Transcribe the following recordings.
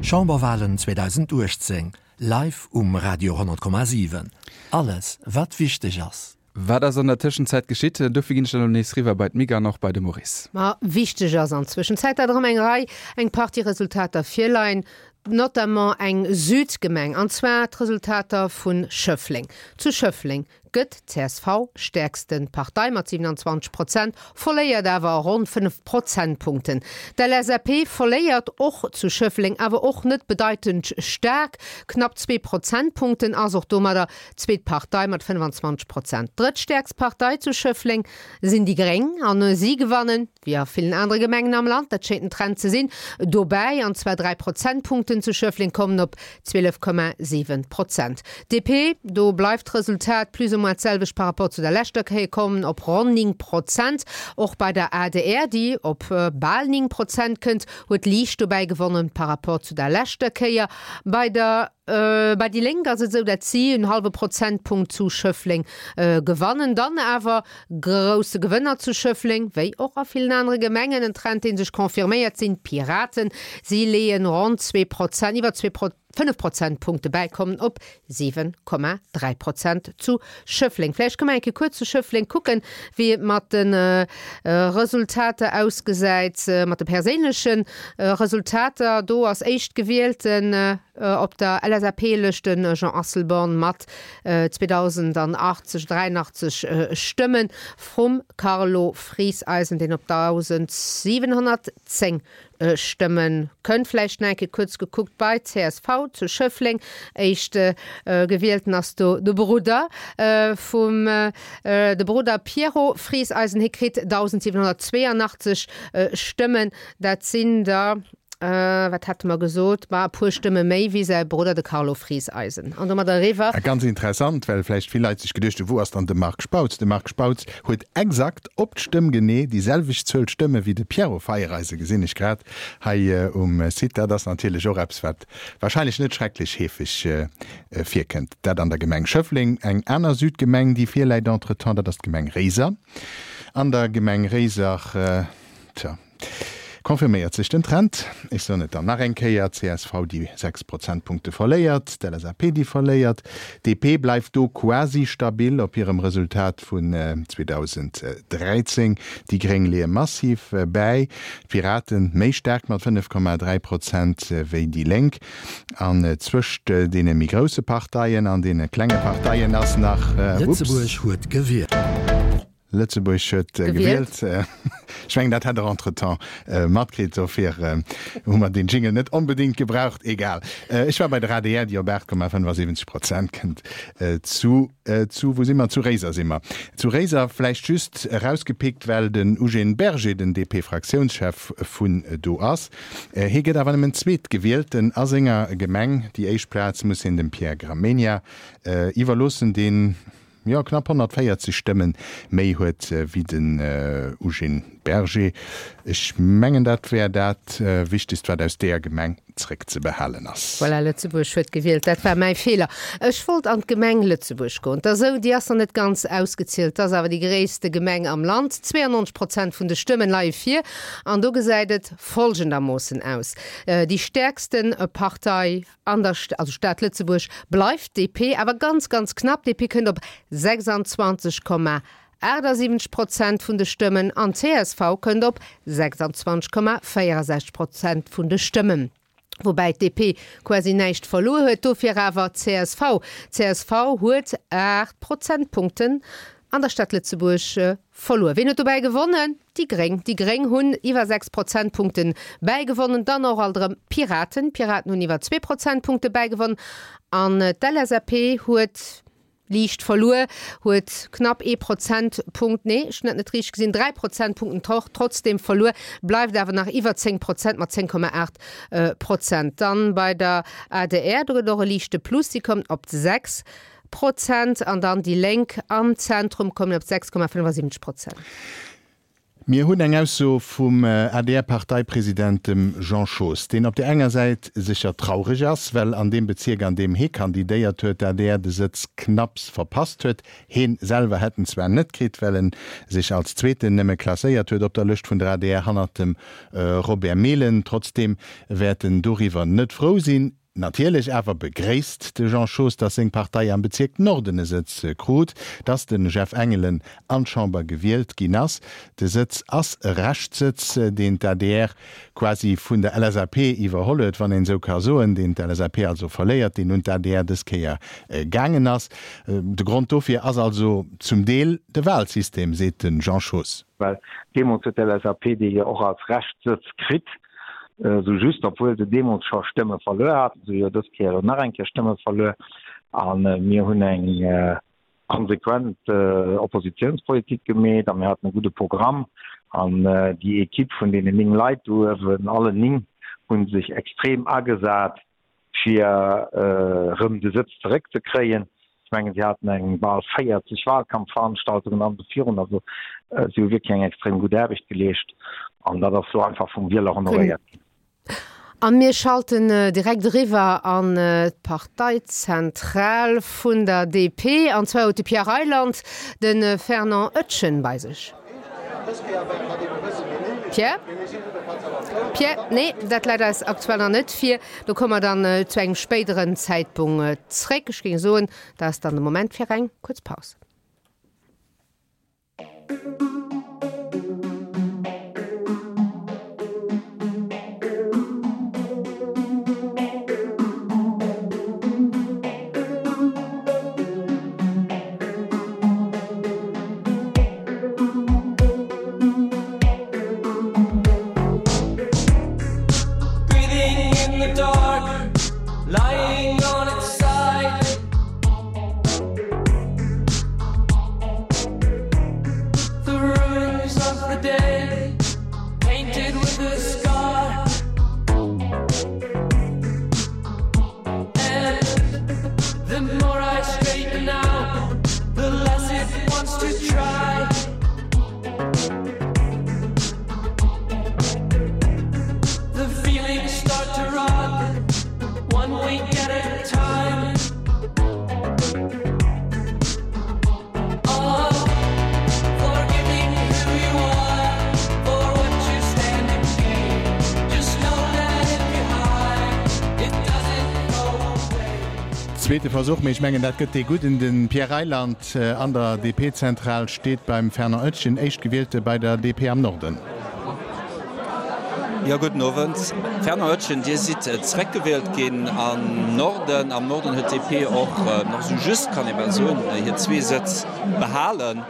Chamberwalen 2018, live um Radio 10,7. Alles, wat wichteg ass. Wat ass an der Tëschenzäit geschitt? Dofir ginn ech dann elo nees riwwer bei d'Mick an och bei de Maurice. Ma wichteg ass an Zwëschenzäit, dat erëm eng Rei, eng Partie Resultater virleien, notamment eng Südgemeng, an zwar d'Resultater vu Schëffleng. Zu Schëffleng gëtt d'CSV stäerkste Partei mat 27 Prozent, verléiert awer ronn 5 Prozentpunkten. D'LSAP verléiert och zu Schëffleng, awer och net bedeitend staark, knapp zwee Prozentpunkten, ass och domadder zweet Partei mat 25 Prozent. Drëttstäerkst Partei zu Schëffleng sinn déi Gréng an si gewannen, wéi a villen anere Gemengen am Land, dat schéngt en Trend ze sinn, dobäi, an zwar 3 Prozentpunkten zu Schëffleng, kommen op 12,7 Prozent. DP, do bleift d'Resultat plus ou moins d'selwecht par rapport zu der leschter Kéier, kommen op ronn 9 Prozent. Och bei der adr, déi op bal 9 Prozent kënnt, huet liicht dobäi gewonnen par rapport zu der leschter Kéier. Bei der. Bei déi Lénk ass et esou, dat si en hallwe Prozentpunkt zu Schëffleng gewannen. Dann awer grousse Gewënner zu Schëffleng, wéi och a villen anere Gemengen, en Trend dee sech confirméiert, sinn d'Piraten. Si leeën ronn 2 Prozent, iwwer 2, 5 Prozentpunkte bäi, kommen op 7,3 Prozent zu Schëffleng. Vläicht kënne mer eng Kéier kuerz zu Schëffleng kucken, wéi et mat de Resultater ausgesäit, mat de perséinleche Resultater. Do ass Éischtgewielten Op der LSAP-Lëscht de Jean Asselborn mat 2.080, 83 Stëmmen, vrum Carlo Frieseisen, deen op 1.710 Stëmme kënnt. Vläicht nach eng Kéier kuerz gekuckt bei csv zu Schëffleng, éischt Gewielten ass do de Brudder vum, de Brudder Pierrot Frieseisen, hie kritt 1.782 Stëmmen, dat sinn der Wat hate mer gesot? Ma e puer Stëmme méi wéi säi Brudder, de Carlo Frieseisen. An domat eriwwer. A ganz interessant, well vläicht vill Leit sech geduecht hunn, Wou ass dann de Marc Spautz? De Marc Spautz huet exakt op d'Stëmm genee déi selwecht Zuel Stëmme wéi de Pierrot Feiereisen, gesinn ech grad hei um Site. Dat ass natierlech och eppes, wat warscheinlech net schrecklech heefeg virkënnt. Dat an der Gemeng Schëffleng. Eng aner Südgemeng, déi virläit entretemps, dat ass d'Gemeng Réiser. An der Gemeng Réiser, tja. Confirméiert sech den Trend? Ech soen et dann nach eng Kéier, csv déi 6 Prozentpunkte verléiert, d'LSAP déi verléiert, d'DP bleift do quasi stabil op hirem Resultat vun 2013, déi Gréng leeë massiv bäi, d'Piraten méi staark mat 5,3 Prozent wéi déi Lénk. An zwëscht deene méi grousse Parteien an deene klenge Parteien ass nach, ups. Lëtzebuerg huet gewielt. Lëtzebuerg huet gewielt. Ech mengen, dat hätt Der entretemps matkritt. Dofir hu mer deen Jingle net onbedéngt gebraucht. Egal. Ech war bei der adr, déi op 8,75 Prozent kënnt. Zu, zu, wou si mer? Zu Réiser si mer. Zu Réiser vläicht just erausgepickt, well den Eugène Berger den DP-Fraktiounschef vun do ass. Hie gëtt awer nëmmen Zweetgewielten a senger Gemeng. Déi éischt Plaz muss hien dem Pierre Gramegna iwwerloossen, deen, jo, knapp 140 Stëmmen méi huet wéi den Eugène Berger. Ech mengen, dat wär dat Wichtegst, wat aus deeër Gemeng zréckzebehalen ass. Voilà, Lëtzebuerg huet gewielt. Dat war mäi Feeler. Ech wollt an d'Gemeng Lëtzebuerg goen. 't ass esou, déi ass nach net ganz ausgezielt, 't ass awer déi gréisste Gemeng am Land. 92 Prozent vun de Stëmmen leie vir an do gesäit et folgendermoossen aus, Déi stäerkste Partei An der also Stad Lëtzebuerg bleift d'DP awer ganz, ganz knapp. DP kënnt op 26,78 Prozent vun de Stëmmen an csv kënnt op 26,64 Prozent vun de Stëmmen. Woubäi d'DP quasi näischt verluer huet, dofir awer csv. Csv huet 8 Prozentpunkten an der Stad Lëtzebuerg verluer. Ween huet dobäi gewonnen? Déi Gréng. Déi Gréng hunn iwwer 6 Prozentpunkte bäigewonnen. Dann och alt erëm d'Piraten. D'Piraten hunn iwwer zwee Prozentpunkte bäigewonnen. An d'LSAP huet liicht verluer, huet knapp ee Prozentpunkt, nee, ech hunn dat net richteg gesinn, 3 Prozentpunkten trotzdeem verluer, bleift awer nach iwwer 10 Prozent mat 10,8 Prozent. Dann bei der adr, do gëtt et och e liichte Plus, si kommt op 6 Prozent an dann déi Lénk am Zentrum kommen op 6,75 Prozent. Mir hunn eng Ausso vum ADR-Parteipresident, dem Jean Schoos, deen op där enger Säit sécher traureg ass, well an deem Bezierk, an deem hee kandidéiert huet, d'ADR de Sëtz knapps verpasst huet. Heen selwer hätt en zwar net kritt, well en sech als Zweeten nëmme klasséiert huet op der Lëscht vun der adr, hannert dem Robert Mehlen. Trotzdeem wäert en doriwwer net frou sinn. Natierlech awer begréisst de Jean Schoos, datt seng Partei am Bezierk Norden e Sëtz krut, datt de Jeff Engelen an d'Chamber gewielt ginn ass. De Sëtz ass e Reschtsëtz, deen d'ADR quasi vun der LSAP iwwerholl huet, wann een esou ka soen, deen d'LSAP also verléiert, deen un d'ADR dës Kéier gaangen ass. De Grond dofir ass also zum Deel de Wahlsystem, seet de Jean Schoos. Well deemools huet d'LSAP dee jo och als Reschtsëtz kritt. Esou just, obwuel se deemools scho Stëmme verluer haten. Se hu jo dës Kéier elo nach eng Kéier Stëmme verluer. A mir hunn eng konsequent Oppositionspolitik gemeet a mir haten e gudde Programm. An déi Equipe vun deenen 9 Leit do uewen, allen 9, hu sech extrem agesat, fir erëm de Sëtz zeréckzekréien. Ech mengen, si haten eng bal 40 Wahlkampfveranstaltungen an esou virun. Also si hu wierklech eng extrem gutt Aarbecht geleescht an dat ass elo einfach vum Wieler honoréiert ginn. A mir schalten direkt eriwwer an d'Parteizentral vun der DP. An zwar huet de Pierre Reyland de Fernand Oetjen bei sech. Pierre? Pierre? Nee, dat läit eis aktuell nach net vir. Do komme mer dann zu engem spéideren Zäitpunkt zréck. Ech géing soen, dat ass dann de Moment fir eng kuerz Paus. Zweete Versuch, mee ech mengen dat gëtt dee gudden. De Pierre Reyland an der DP-Zentral steet beim Fernand Oetjen, Éischtgewielte bei der DP am Norden. Jo, gudden Owend. Fernand Oetjen, Dir sidd zeréckgewielt ginn am Norden. Am Norden huet d'DP och nach esou just, kann ee bal soen, hir zwee Sëtz behalen.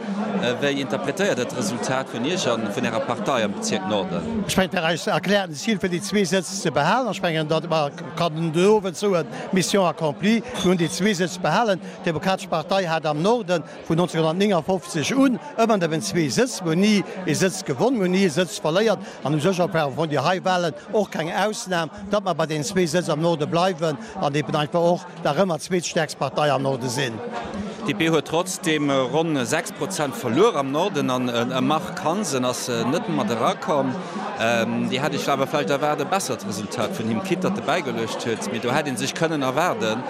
Wéi interpretéiert Der d'Resultat vun Iech a vun Ärer Partei am Bezierk Norden? Ech mengen, dat eist erkläerten Zil fir déi zwee Sëtz ze behalen. Ech mengen, datt mer kann den Owend soen, Mission accomplie, mir hunn déi zwee Sëtz behalen. D'Demokratesch Partei hat am Norden vun 1959 un ëmmer nëmmen zwee Sëtz. Mir hunn ni ee Sëtz gewonn, mir hunn ni ee Sëtz verléiert an u sech war vun déi hei Wahlen och keng Ausnam, datt mer bei deenen zwee Sëtz am Norde bleiwen an eben einfach och nach ëmmer d'zweetstäerkst Partei am Norde sinn. D'DP huet trotzdeem ronn 6 Prozent verluer am Norden an e Marc Hansen ass net mat erakomm. Dir hätt Iech awer vläicht erwaart e bessert Resultat vun him, quitte datt e bäigeluecht huet, mee do hätt ee sech kënnen erwaarden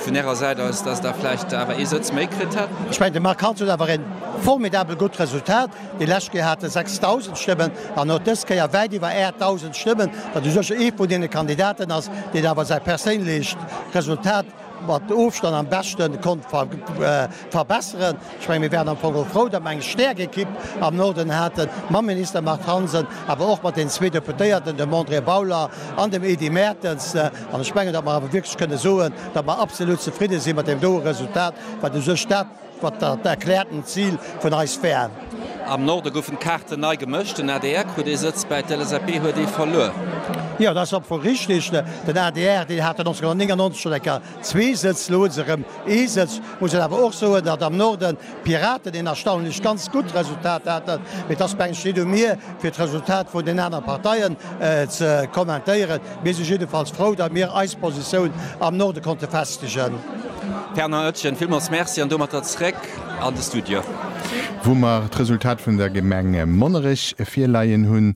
vun Ärer Säit aus, datt Der vläicht awer ee Sëtz méi kritt hätt. Ech mengen, de Marc Hansen huet awer e formidabel gutt Resultat. Déi lescht Kéier hat e 6.000 Stëmmen an huet dës Kéier wäit iwwer 8.000 Stëmmen, wat u sech ee vun deene Kandidaten ass, deen awer säi perséinlecht Resultat mat Ofstand am beschte konnt verbesseren. Ech menge mir wären am Fong och frou, datt mer eng staark Ekipp am Norden haten, mam Minister Marc Hansen, awer och mat den zwee Deputéierten, dem André Bauler an dem Edy Mertens. An ech mengen, datt mer awer wierklech kënne soen, datt mer absolut zefridde si mat deem doe Resultat, wat u sech dat, wat dat erkläerten Zil vun eis wär. Am Norde goufen d'Kaarten nei gemëscht, den adr krut ee Sëtz bäi, d'LSAP huet ee verluer. Jo, dat ass am Fong richtig. Den adr, deen hat 1999 schonn eng Kéier zwee Sëtz, elo hu se erëm ee Sëtz. Muss een awer och soen, datt am Norden d'Piraten een erstaunlech ganz gutt Resultat haten. Mee et ass, mengen ech, net u mir, fir d'Resultat vun den anere Parteien ze kommentéieren. Mir si jiddefalls frou, datt mir eis Positioun am Norde konnte festegen. Fernand Oetjen, villmools Merci an domatter zréck an de Studio. Wou mer d'Resultat vun der Gemeng Monnerech virleien hunn.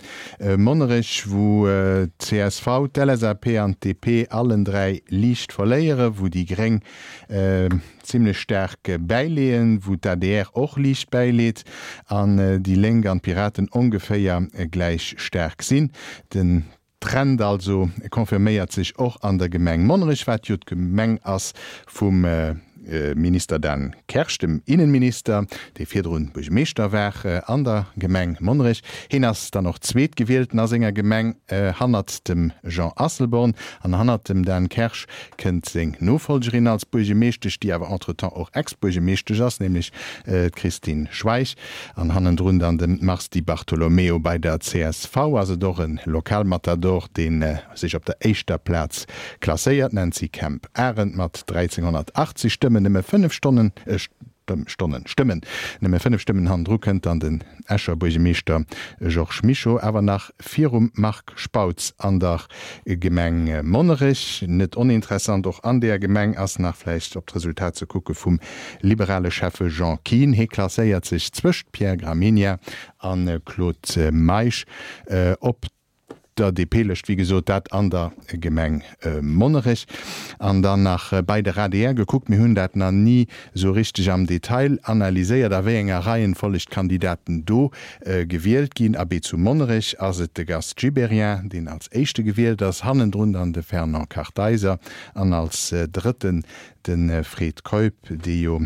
Monnerech, wou d'CSV, d'LSAP an d'DP allen 3 liicht verléieren, wou déi Gréng zimlech staark bäileeën, wou d'ADR och liicht bäileet an déi Lénk an d'Piraten ongeféier gläich staark sinn. Den Trend also confirméiert sech och an der Gemeng Monnerech, wat jo d'Gemeng ass vum Minister Dan Kersch, dem Innenminister, dee virdrun Buergermeeschter war an der Gemeng Monnerech. Heen ass dann och Zweetgewielten a senger Gemeng hannert dem Jean Asselborn. An hannert dem Dan Kersch kënnt seng Nofolgerin als Buergemeeschtesch, déi awer entretemps och Ex-Buergemeeschtesch ass, nämlech d'Christine Schweich. An hannendrun dann de Mars Di Bartolomeo. Bei der csv ass et och e Lokalmatador, dee sech op der éischter Plaz klasséiert, d'Nancy Kemp-Arendt mat 1.380 Stëmmen, nëmme 5 Stonnen, Stonnen, Stëmmen, nëmme 5 Stëmmen hannendru kënnt dann den Escher Buergemeeschter Georges Mischo, awer nach virum Marc Spautz an der Gemeng Monnerech. Net oninteressant och an deeër Gemeng ass nach vläicht op d'Resultat ze kucke vum liberale Schäffe Jean Kihn. Hie klasséiert sech zwëscht Pierre Gramegna a Claude Meisch op der DP-Lëscht, wéi gesot, dat an der Gemeng Monnerech. An dann nach bei der adr gekuckt, mir hunn dat nach ni esou richteg am Detail analyséiert, a wéi enger Reihenfolleg d'Kandidaten do gewielt ginn. Abee, zu Monnerech ass et de Gast Gibéryen, deen als éischte gewielt ass, hannendrun dann de Fernand Kartheiser an als drëtten De Fred Keup, dee jo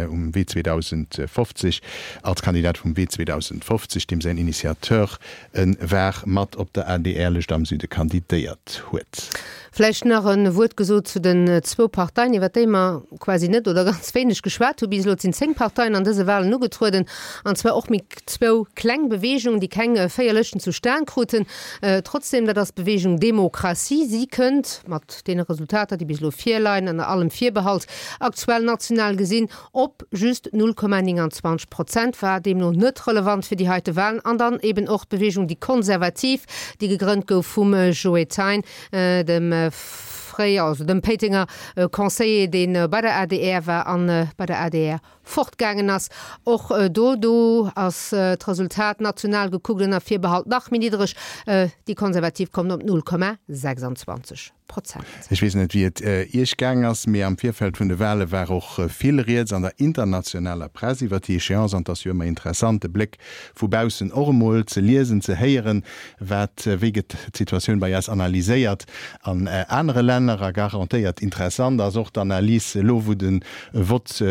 um Wee 2050 als Kandidat vum Wee 2050, deem säin Initiateur e war, mat op der ADR-Lëscht am Süde kandidéiert huet. Vläicht nach e Wuert gesot zu den zwou Parteien, iwwer déi mer quasi net oder ganz wéineg geschwat hu bis elo. Et sinn 10 Parteien an dëse Wahlen ugetrueden, an zwar och méi zwou kleng Beweegungen, déi keng 4 Lëschten zustan kruten. Trotzdem, dat ass d'Beweegung Demokratie. Si kënnt mat deene Resultater, déi bis elo virleien, ënner allem Virbehalt, aktuell national gesinn, op just 0,29 Prozent, war deemno net relevant fir déi heite Wahlen. An dann eben och d'Beweegung Déi Konservativ, déi gegrënnt gouf vum Joe Thein, dem fréier, also dem Péitenger Conseiller, dee bei der adr war an bei der adr fortgaangen ass. Och do do ass d'Resultat national gekuckt ënner Virbehalt nach méi niddereg, déi Konservativ kommen op 0,26 Prozent. Ech weess net, wéi et Iech gaang ass, mee am Virfeld vun de Wale war och vill Rieds an der internationaler Press iwwer déi Echéance. An et ass jo ëmmer interessant, de Bléck vu baussen och emol ze liesen, ze héieren, wat, wéi gëtt d'Situatioun bei eis analyséiert an anere Länner. A garantéiert interessant ass och d'Analys elo, wou de Vott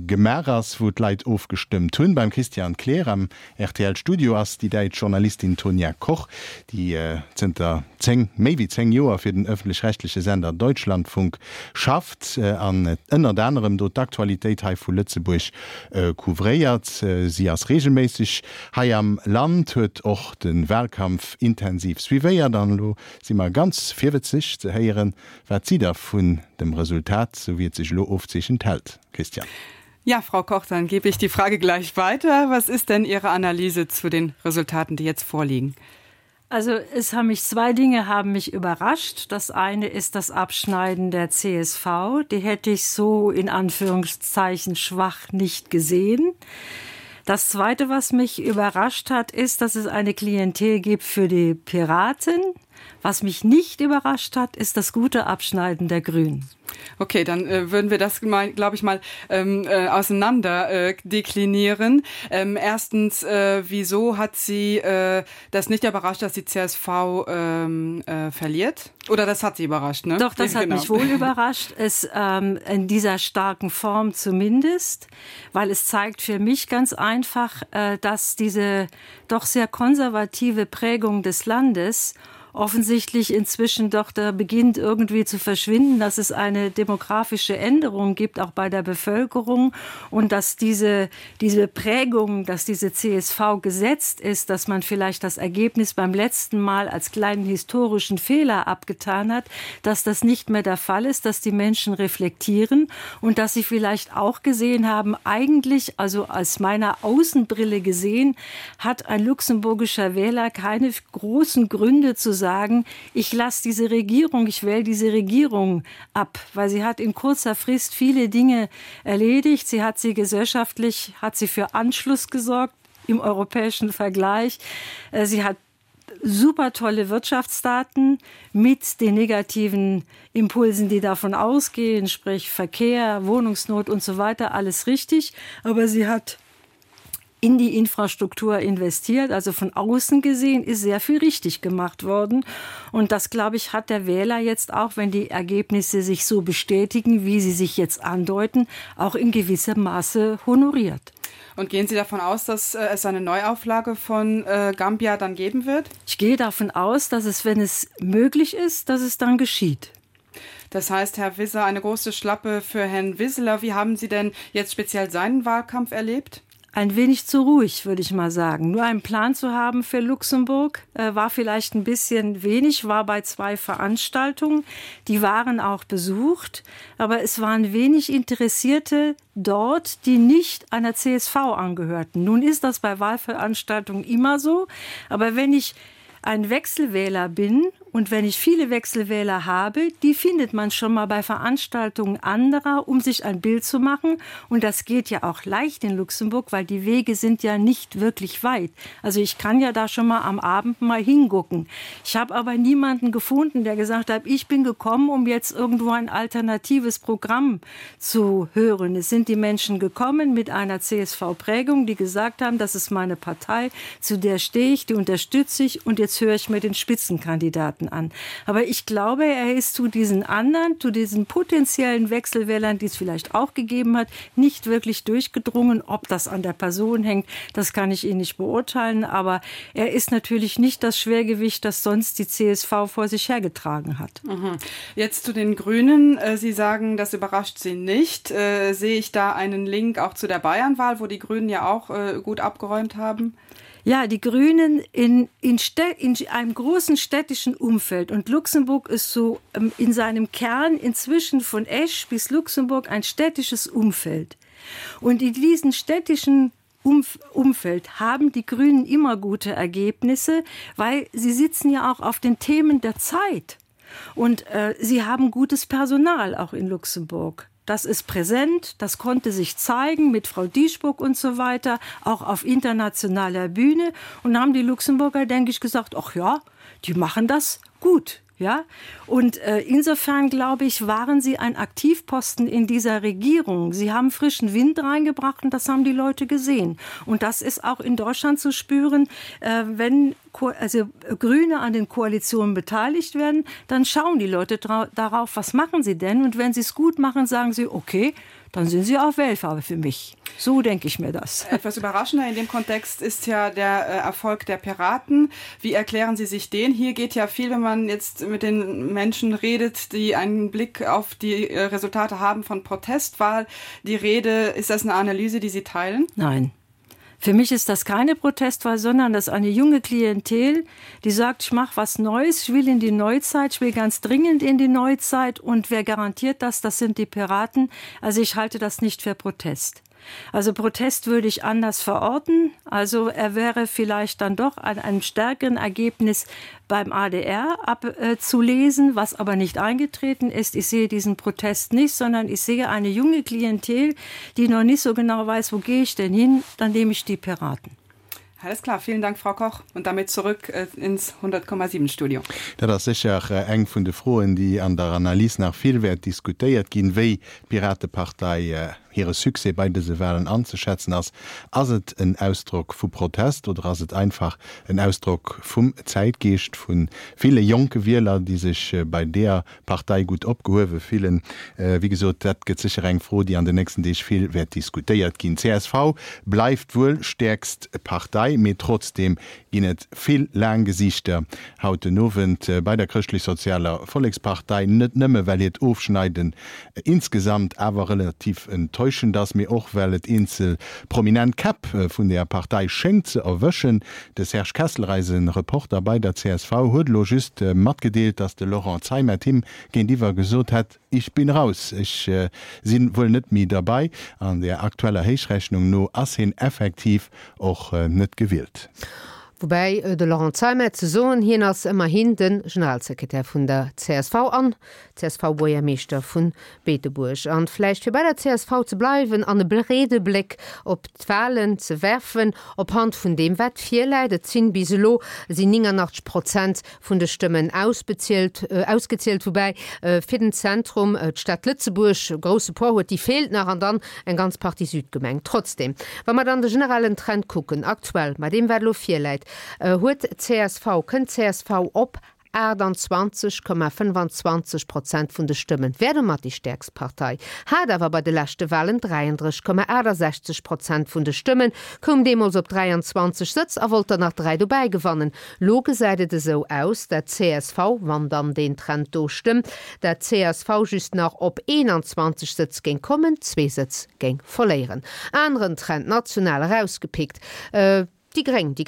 gemaach ass, wou d'Leit ofgestëmmt hunn. Beim Christian Kleer am RTL-Studio ass déi däitsch Journalistin Tonia Koch, déi zënter 10, méi wéi 10 Joer fir den ëffentlech-rechtleche Sender Deutschlandfunk schafft an ënnert anerem do d'Aktualitéit hei vu Lëtzebuerg couvréiert. Si ass reegelméisseg hei am Land, huet och de Walkampf intensiv suivéiert an elo si mer ganz virwëtzeg ze héieren, wat si da vun dem Resultat, sou wéi et sech elo ofzeechent, hält. Christian. Ja, Frau Koch, dann gebe ich die Frage gleich weiter. Was ist denn Ihre Analyse zu den Resultaten, die jetzt vorliegen? Also es haben mich zwei Dinge haben mich überrascht. Das eine ist das Abschneiden der CSV. Die hätte ich so in Anführungszeichen schwach nicht gesehen. Das zweite, was mich überrascht hat, ist, dass es eine Klientel gibt für die Piraten. Was mich nicht überrascht hat, ist das gute Abschneiden der Grünen. Okay, dann äh, würden wir das glaube ich mal ähm, äh, auseinander äh, deklinieren. Ähm, erstens, äh, wieso hat sie äh, das nicht überrascht, dass die CSV ähm, äh, verliert? Oder das hat sie überrascht ne? Doch, das hat genau. mich wohl überrascht, es ähm, in dieser starken Form zumindest, weil es zeigt für mich ganz einfach, äh, dass diese doch sehr konservative Prägung des Landes offensichtlich inzwischen doch da beginnt irgendwie zu verschwinden, dass es eine demografische Änderung gibt, auch bei der Bevölkerung und dass diese, diese Prägung, dass diese CSV gesetzt ist, dass man vielleicht das Ergebnis beim letzten Mal als kleinen historischen Fehler abgetan hat, dass das nicht mehr der Fall ist, dass die Menschen reflektieren und dass sie vielleicht auch gesehen haben, eigentlich also als meiner Außenbrille gesehen, hat ein luxemburgischer Wähler keine großen Gründe zu sagen. sagen, ich lasse diese Regierung, ich wähle diese Regierung ab, weil sie hat in kurzer Frist viele Dinge erledigt. Sie hat sie gesellschaftlich, hat sie für Anschluss gesorgt im europäischen Vergleich. Äh, sie hat super tolle Wirtschaftsdaten mit den negativen Impulsen, die davon ausgehen, sprich Verkehr, Wohnungsnot und so weiter, alles richtig. Aber sie hat in die Infrastruktur investiert. Also von außen gesehen ist sehr viel richtig gemacht worden. Und das, glaube ich, hat der Wähler jetzt auch, wenn die Ergebnisse sich so bestätigen, wie sie sich jetzt andeuten, auch in gewissem Maße honoriert. Und gehen Sie davon aus, dass äh, es eine Neuauflage von äh, Gambia dann geben wird? Ich gehe davon aus, dass es, wenn es möglich ist, dass es dann geschieht. Das heißt, Herr Wisser, eine große Schlappe für Herrn Wissler. Wie haben Sie denn jetzt speziell seinen Wahlkampf erlebt? Ein wenig zu ruhig, würde ich mal sagen. Nur einen Plan zu haben für Luxemburg äh, war vielleicht ein bisschen wenig, war bei zwei Veranstaltungen. Die waren auch besucht, aber es waren wenig Interessierte dort, die nicht einer CSV angehörten. Nun ist das bei Wahlveranstaltungen immer so, aber wenn ich ein Wechselwähler bin und wenn ich viele Wechselwähler habe, die findet man schon mal bei Veranstaltungen anderer, um sich ein Bild zu machen. Und das geht ja auch leicht in Luxemburg, weil die Wege sind ja nicht wirklich weit. Also ich kann ja da schon mal am Abend mal hingucken. Ich habe aber niemanden gefunden, der gesagt hat, ich bin gekommen, um jetzt irgendwo ein alternatives Programm zu hören. Es sind die Menschen gekommen mit einer CSV-Prägung, die gesagt haben, das ist meine Partei, zu der stehe ich, die unterstütze ich und jetzt höre ich mir den Spitzenkandidaten an. Aber ich glaube, er ist zu diesen anderen, zu diesen potenziellen Wechselwählern, die es vielleicht auch gegeben hat, nicht wirklich durchgedrungen. Ob das an der Person hängt, das kann ich Ihnen nicht beurteilen. Aber er ist natürlich nicht das Schwergewicht, das sonst die CSV vor sich hergetragen hat. Mhm. Jetzt zu den Grünen. Äh, Sie sagen, das überrascht Sie nicht. Äh, sehe ich da einen Link auch zu der Bayernwahl, wo die Grünen ja auch äh, gut abgeräumt haben? Ja, die Grünen in, in, in einem großen städtischen Umfeld und Luxemburg ist so ähm, in seinem Kern inzwischen von Esch bis Luxemburg ein städtisches Umfeld. Und in diesen städtischen Umf Umfeld haben die Grünen immer gute Ergebnisse, weil sie sitzen ja auch auf den Themen der Zeit. Und äh, sie haben gutes Personal auch in Luxemburg. Das ist präsent, das konnte sich zeigen mit Frau Dieschburg und so weiter, auch auf internationaler Bühne. Und haben die Luxemburger, denke ich, gesagt, ach ja, die machen das gut. Ja? Und äh, insofern, glaube ich, waren sie ein Aktivposten in dieser Regierung. Sie haben frischen Wind reingebracht und das haben die Leute gesehen. Und das ist auch in Deutschland zu spüren, äh, wenn Ko also Grüne an den Koalitionen beteiligt werden, dann schauen die Leute darauf, was machen sie denn? Und wenn sie es gut machen, sagen sie, okay, dann sind sie auch Wählfarbe für mich. So denke ich mir das. Etwas überraschender in dem Kontext ist ja der äh, Erfolg der Piraten. Wie erklären Sie sich den? Hier geht ja viel, wenn man jetzt mit den Menschen redet, die einen Blick auf die äh, Resultate haben von Protestwahl. Die Rede, ist das eine Analyse, die Sie teilen? Nein. Für mich ist das keine Protestwahl, sondern das eine junge Klientel, die sagt, ich mache was Neues, ich will in die Neuzeit, ich will ganz dringend in die Neuzeit und wer garantiert das, das sind die Piraten. Also ich halte das nicht für Protest. Also Protest würde ich anders verorten. Also er wäre vielleicht dann doch an einem stärkeren Ergebnis beim ADR abzulesen, äh, was aber nicht eingetreten ist. Ich sehe diesen Protest nicht, sondern ich sehe eine junge Klientel, die noch nicht so genau weiß, wo gehe ich denn hin, dann nehme ich die Piraten. Alles klar, vielen Dank, Frau Koch. Und damit zurück äh, ins 100,7 Studio. Dat ass sécher eng vun de Froen, déi an der Analys nach vill wäert diskutéiert ginn, wéi d'Piratepartei hire Succès bei dëse Walen anzeschätzen ass. Ass et en Ausdrock vu Protest oder ass et einfach en Ausdrock vum Zäitgeescht vu ville jonke Wieler, déi sech bei deeër Partei gutt opgehuewe fillen? Wéi gesot, dat gëtt sécher eng Fro, déi an den nächsten Deeg vill wäert diskutéiert ginn. Csv bleift wuel stäerkst Partei, mee trotzdeem ginn et vill laang Gesiichter haut den Owend bei der Chrëschtlech-Sozialer Vollekspartei. Net nëmme well hiert Ofschneiden insgesamt awer relativ enttäuschend ass, mee och well et eenzel prominent Käpp vun der Partei schéngt ze erwëschen. De Serge Kesseler, eise Reporter bei der csv, huet elo just matgedeelt, datt de Laurent Zeimet him géintiwwer gesot hätt, Ich bin raus, ech si wuel net méi derbei. An der aktueller Héichrechnung no ass hien effektiv och net gewielt. Woubäi de Laurent Zeimet ze soen, hien ass ëmmerhin de Generalsekretär vun der csv an CSV-Buergermeeschter vu Beetebuerg. An vläicht fir bei der csv ze bleiwen an e breede Bléck op d'Wahlen ze werfen, op Hand vun deem wat virläit, et sinn bis elo sinn 89 Prozent vun de Stëmmen ausbezielt, ausgezielt, woubäi fir den Zentrum d'Stad Lëtzebuerg e grousse Poids huet, déi feelt nach, an dann eng ganz Partie Südgemeng. Trotzdem, wa mer dann de generellen Trend kucken, aktuell, bei deem wat elo virläit, huet csv, kënnt csv op 28,25 Prozent vun de Stëmmen, wär domat déi stäerkst Partei, hat awer bei de leschte Walen 33,68 Prozent vun de Stëmmen, koum deemools op 23 Sëtz a wollt der nach 3 dobäi gewannen. Lo gesäit et esou aus, dat csv, wann dann deen Trend do stëmmt, dat csv just nach op 21 Sëtz géing kommen, zwee Sëtz géing verléieren. Aneren Trend, national erausgepickt, déi Gréng. Déi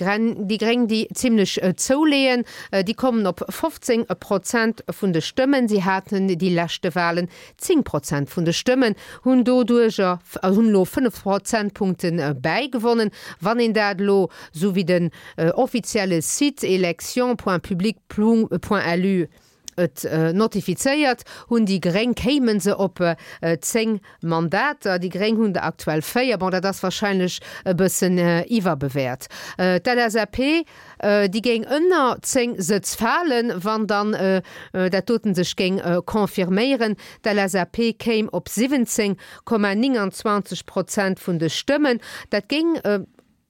Gréng, déi zimlech zouleeën, déi kommen op 15 Prozent vun de Stëmmen. Si haten déi leschte Walen 10 Prozent vun de Stëmmen, hunn doduercher, hunn elo 5 Prozentpunkte bäigewonnen. Wann een dat elo, esou wéi den offizielle Site elections.public.lu et notifizéiert, hunn déi Gréng, kéime se op 10 Mandater. Déi Gréng hunn der aktuell 4. Bon, dat ass wahrscheinlech e bëssen iwwerbewäert. D'LSAP, déi géing ënner 10 Sëtz falen, wann dann dat doten sech géing confirméieren. D'LSAP kéim op 17,29 Prozent vun de Stëmmen. Dat géing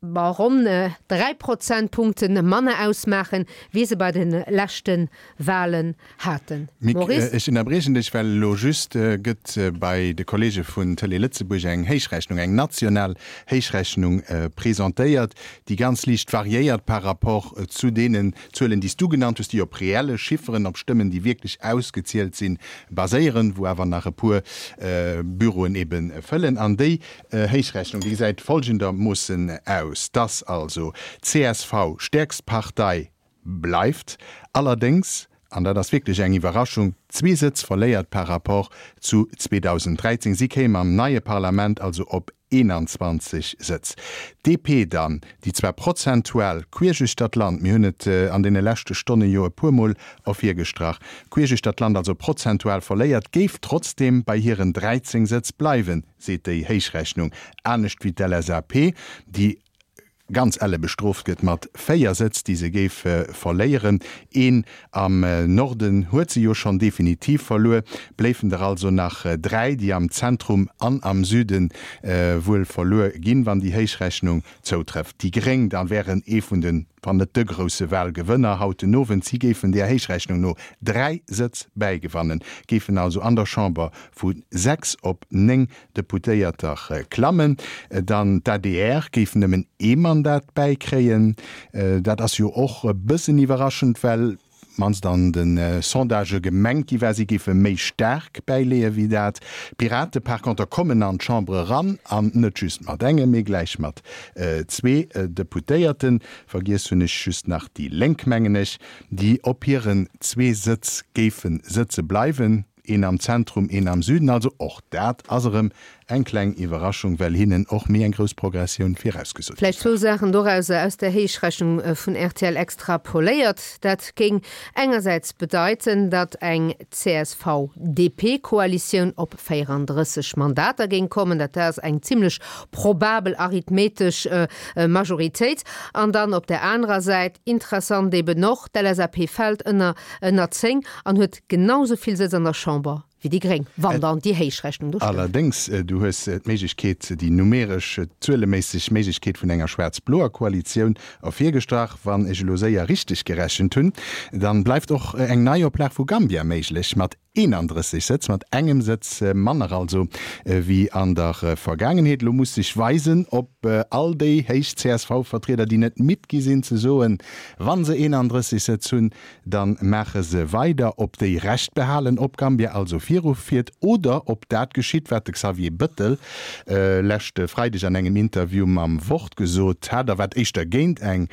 Bon, ronn 3 Prozentpunkte manner ausmaachen, wéi se bei de leschte Walen haten. Mick, Maurice? ech ënnerbriechen dech, well elo just gëtt bei de Kollege vun Télé Lëtzebuerg eng Héichrechnung, eng national Héichrechnung presentéiert, déi ganz liicht variéiert par rapport zu deenen Zuelen, déi s du genannt hues, déi op reelle Chifferen, op Stëmmen, déi wierklech ausgezielt sinn, baséieren, wou awer nach e puer Büroen ebe fëllen. An déi Héichrechnung, déi gesäit folgendermoossen aus, dass also csv stäerkst Partei bleift, allerdéngs, an dat ass wierklech eng Iwwerraschung, zwee Sëtz verléiert par rapport zu 2013. Si kéim am neie Parlament also op 21 Sëtz. D'DP dann, déi zwar prozentual queesch uechter d'Land, mir hunn et an deene leschte Stonne jo e puermol ervirgestrach, queesch uechter d'Land also prozentual verléiert, géif trotzdeem bei hiren 13 Sëtz bleiwen. seet déi Héichrechnung, anescht wéi d'LSAP, déi ganz elle bestrooft gëtt mat 4 Sëtz, déi se géif verléieren. Een am Norden huet se jo schonn definitiv verluer, bléifen der also nach 3, déi am Zentrum an am Süde wuel verluer ginn, wann déi Héichrechnung zoutrëfft. Déi Gréng da wären ee vun den, wann net de grousse Wahlgewënner haut den Owend. Si géifen där Héichrechnung no 3 Sëtz bäigewannen, géifen also an der Chamber vu 6 op 9 Deputéierter klammen. Dann d'ADR géif nëmmen ee Mandat bäikréien. Dat ass jo och e bëssen iwwerraschend, well mannst an de Sondagë gemengt gi war, si géife méi staark bäileeë wéi dat. D'Pirate par conter kommen an d'Chamber eran, an net just mat engem, mee gläich mat zwee Deputéierten. Vergiess hunn ech just nach déi Lénk, mengen ech, déi op hiren zwee Sëtz géife sëtze bleiwen. Een am Zentrum, een am Süden. Also och dat ass erëm eng kleng Iwwerraschung, well hinnen och méi eng grouss Progressioun virausgesot gi Vläicht war. zwou Saachen dorauser aus der Héichrechnung vun rtl extrapoléiert. Dat géing engersäits bedeiten, datt eng CSV-DP-Koalitioun op 34 Mandater géing kommen. Dat ass eng zimlech probabel arithmetesch Majoritéit. An dann op der anerer Säit, interessant eben och, d'LSAP fält ënner ënner 10 an huet genau sou vill Sëtz an der Chamber wéi déi Gréng, wann dann déi Héichrechnung do stëmmt. Allerdéngs, du hues d'Méiglechkeet, déi numeresch, zueleméisseg Méiglechkeet vun enger schwaarz-bloer Koalitioun ervirgestrach. Wann ech elo séier richteg gerechent hunn, dann bleift och eng Neioplag vu Gambia méiglech, mat 31 Sëtz, mat engem Sëtz manner also wéi an der Vergaangenheet. Elo muss sech weisen, ob all déi héich CSV-Vertrieder, déi net midd gi sinn ze soen, wa se 31 Sëtz hunn, da maache se weider, ob déi Recht behalen, ob Gambia also virgeet. virufiert oder ob dat geschitt, wat de Xavier Bëttel leschte Freideg an engem Interview mam Wort gesot hat a wat éischter géint eng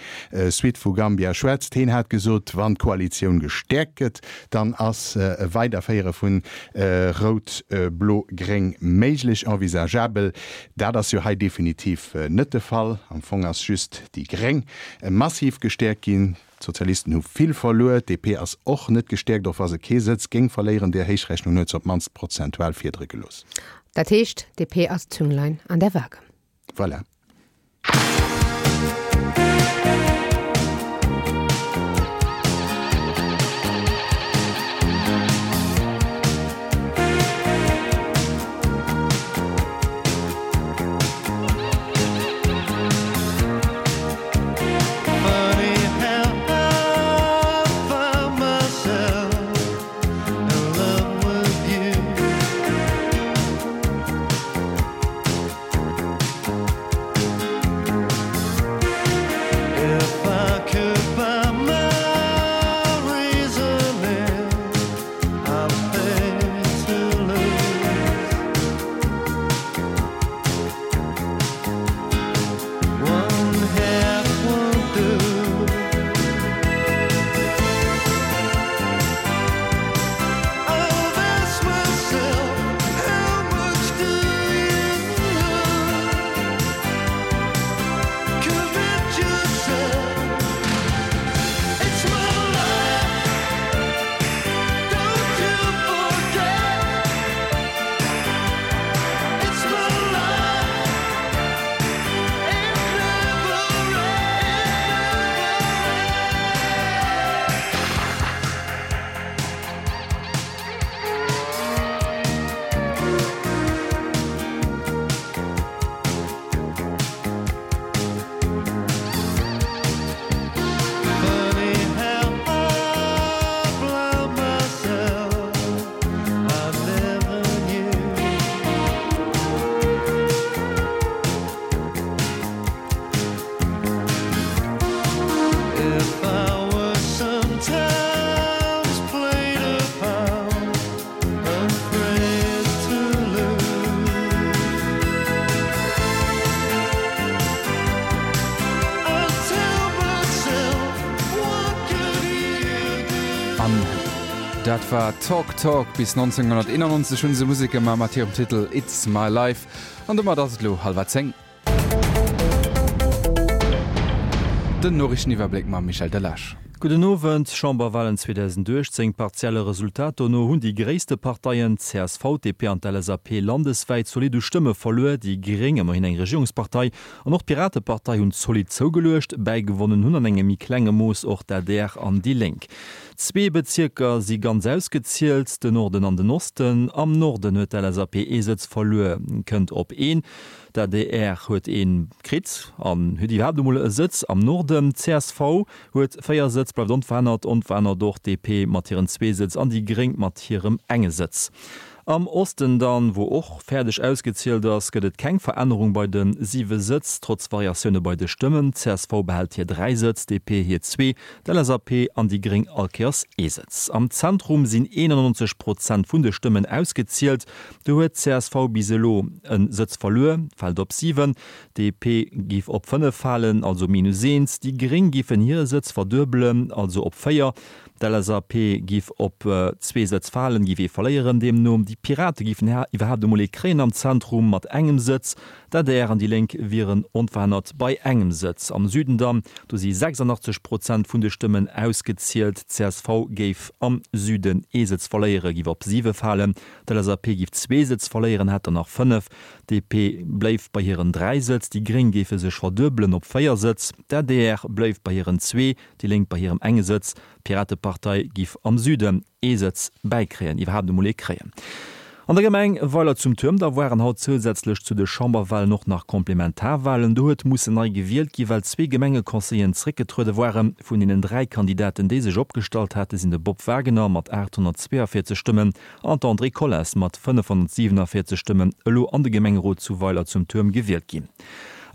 Suite vu Gambia schwätzt. Heen hat gesot, wann d'Koalitioun gestäerkt gëtt, dann ass e Weiderféiere vun Rout-Blo-Gréng méiglech, envisageabel. Dat ass jo hei definitiv net de Fall. Am Fong ass just déi Gréng massiv gestäerkt ginn. D'Sozialisten hu vill verluer, d'DP ass och net gestäerkt, och wa se kee Sëtz géing verléieren. Där Héichrechnung huet se op d'mannst prozentual Fiedere gelooss. Dat heescht, d'DP ass d'Zünglein an der Waage. Voilà. An dat war Talk Talk. Bis 1991 hunn se Musek gemaach mat hirem Titel It's My Life. An domat ass et elo hallwer 10. Den Noriichteniwwerbléck mam Michel Delage. Gudden Owend. Chamberwahlen 2018, Partielle Resultat dono hunn déi gréisste Parteien, csv, DP an d'LSAP, landeswäit zolidd u Stëmme verluer. Déi Gréng, ëmmerhin eng Regierungspartei, an och d'Piratepartei hunn zolidd zougeluecht. Bäigewonnen hunn an engem méi klenge Mooss och d'ADR an déi Lénk. Zwee Bezierker si ganz ausgezielt, den Norden an den Osten. Am Norden huet d'LSAP ee Sëtz verluer, kënnt op een. D'adr huet ee kritt an huet iwwerhaapt emol e Sëtz am Norden. Csv huet 4 Sëtz, bleift onverännert. Onverännert och d'DP mat hiren zwee Sëtz an déi Gréng mat hirem enge Sëtz. Am Osten dann, wou och fäerdeg ausgezielt ass, gëtt et keng Verännerung bei de siwe Sëtz, trotz Variatioune bei de Stëmmen. Csv behält hir 3 Sëtz, DP hir zwee, d'LSAP an déi Gréng all Kéiers ee Sëtz. Am Zentrum sinn 91 Prozent vun de Stëmmen ausgezielt. Do huet csv bis elo e Sëtz verluer, fält op 7, DP giff op 5 falen, also minus eent, déi Gréng giffen hire Sëtz verduebelen, also op 4, d'LSAP giff op zwee Sëtz falen, giff ee verléieren deemno, déi Pirate giffen iwwerhaapt emol ee kréien am Zentrum mat engem Sëtz, d'ADR an déi Lénk wieren onverännert bei engem Sëtz. Am Süden dann, do si 86 Prozent vun de Stëmmen ausgezielt, csv géif am Süden ee Sëtz verléieren, giff op 7 falen, D'LSAP géif zwee Sëtz verléieren, hätt der nach 5. DP bléif bei hiren 3 Sëtz, déi Gréng géife sech verduebelen op 4 Sëtz, d'ADR bléif bei hiren zwee, déi Lénk bei hirem enge Sëtz, d'Piratepartei giff am Süden ee Sëtz bäikréien, iwwerhaapt emol ee kréien. An der Gemeng Weiler zum Tuerm da waren haut zousätzlech zu de Chamberwahlen och nach Komplementarwahlen. Do huet mussen nei gewielt gi well zwee Gemengeconseilleren zréckgetruede waren. Vun deenen 3 Kandidaten déi sech opgestallt hate sinn de Bob Wagener mat 842 Stëmmen an d'Andrée Collas mat 547 Stëmmen elo an de Gemengerot zu Weiler zum Tuerm gewielt ginn.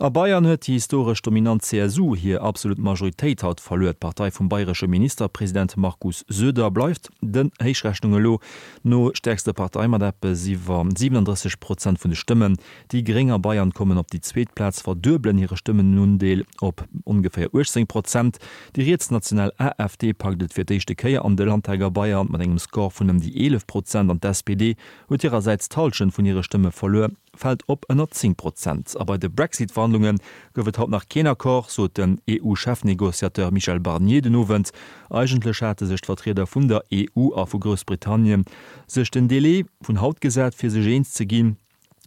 A Bayern huet déi historesch dominant CSU hir absolut Majoritéit haut verluer. D'Partei vum bayresche Ministerpresident Markus Söder bleift den Héichrechnunge lo no stäerkste Partei mat eppes iwwer 37 Prozent vun de Stëmmen. Déi Gréng a Bayern kommen op déi zweet Plaz, verduebelen hire Stëmmenundeel op ongeféier 18 Prozent. Déi rietsnational AfD packt et fir d'éischte Kéier an de Landtag a Bayern mat engem Score vun ëm déi 11 Prozent an d'SPD huet hirersäits d'Hallschent vun hire Stëmme verluer, fält op ënner 10 Prozent. A bei de Brexit-Verhandlunge gouf et haut nach keen Accord, sot den EU-Chefnegociateur Michel Barnier den Owend. Eigentlech hate sech d'Vertrieder vun der EU a vu Groussbritannien sech den Delai vun haut gesat, fir sech eens ze ginn.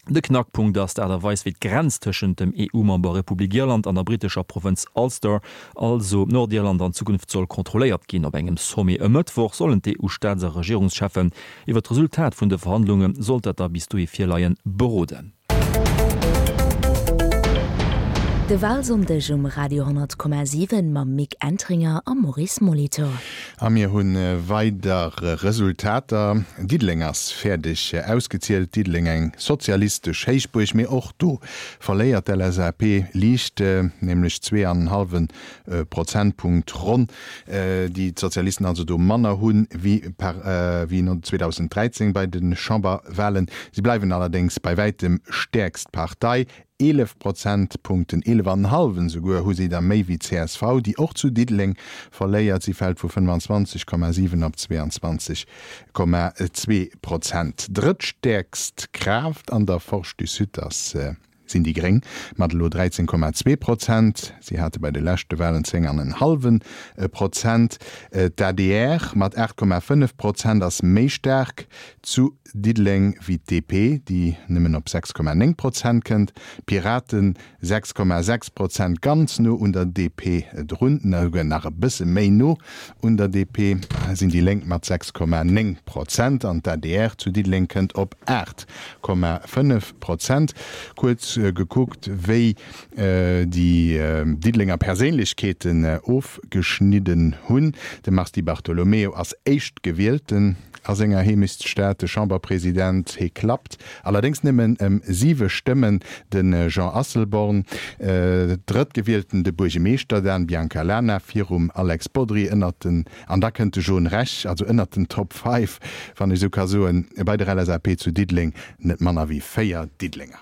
De Knackpunkt ass d'Aart a Weis, wéi d'Grenz tëschent dem EU-Member Republik Irland an der brittescher Provënz Ulster, also Nordirland, an Zukunft soll kontrolléiert ginn. Op engem Sommet e Mëttwoch sollen d'EU-Staats a Regierungscheffen iwwer d'Resultat vun de Verhandlunge, sollt dat da bis dohi virleien, beroden. De Walsonndeg um Radio 10,7 mam Mick Entringer a Maurice Molitor. A mir hu weider Resultater. Diddeleng ass fäerdeg ausgezielt. Diddeleng eng sozialistesch Héichbuerg, mee och do verléiert d'LSAP liicht, nämlech 2 an en hallwe Prozentpunkt ronn, déi d'Sozialisten also do manner hu wéi 2013 bei de Chamberwahlen. Si bleiwen allerdéngs bei wäitem stäerkst Partei. 11 Prozentpunkten, 11 an en hallwen esouguer, hu si der méi wéi csv, déi och zu Diddeleng verléiert. Si fält vu 25,7 op 22,2 Prozent. Drëttstäerkst Kraaft an der Forge du Sud ass sinn déi Gréng mat elo 13,2 Prozent. Si hate bei de leschte Walen 10 an en hallwe Prozent. D'adr mat 8,5 Prozent ass méi staark zu Diddeleng wéi d'DP, déi nëmmen op 6,9 Prozent kënnt. D'Piraten 6,6 Prozent, ganz no un der DP drun, esouguer nach e bësse méi no un der DP sinn déi Lénk mat 6,9 Prozent an d'ADR zu Diddeleng kënnt op 8,5 Prozent. Kuerz gekuckt, wéi déi Diddelenger Perséinlechkeeten ofgeschnidden hunn. De Mars Di Bartolomeo ass Éischtgewielten a senger Heemechtsstad, de Chamberpresident. Hie klappt allerdéngs nëmmen ëm siwe Stëmmen de Jean Asselborn. Drëttgewielten de Buergemeeschter Dan Biancalana virum Alex Bodry ënnert den, an da kënnt de John Rech, also ënnert den Top Five, wann ech esou ka soen, bei der LSAP zu Diddeleng net manner wéi 4 Diddelenger.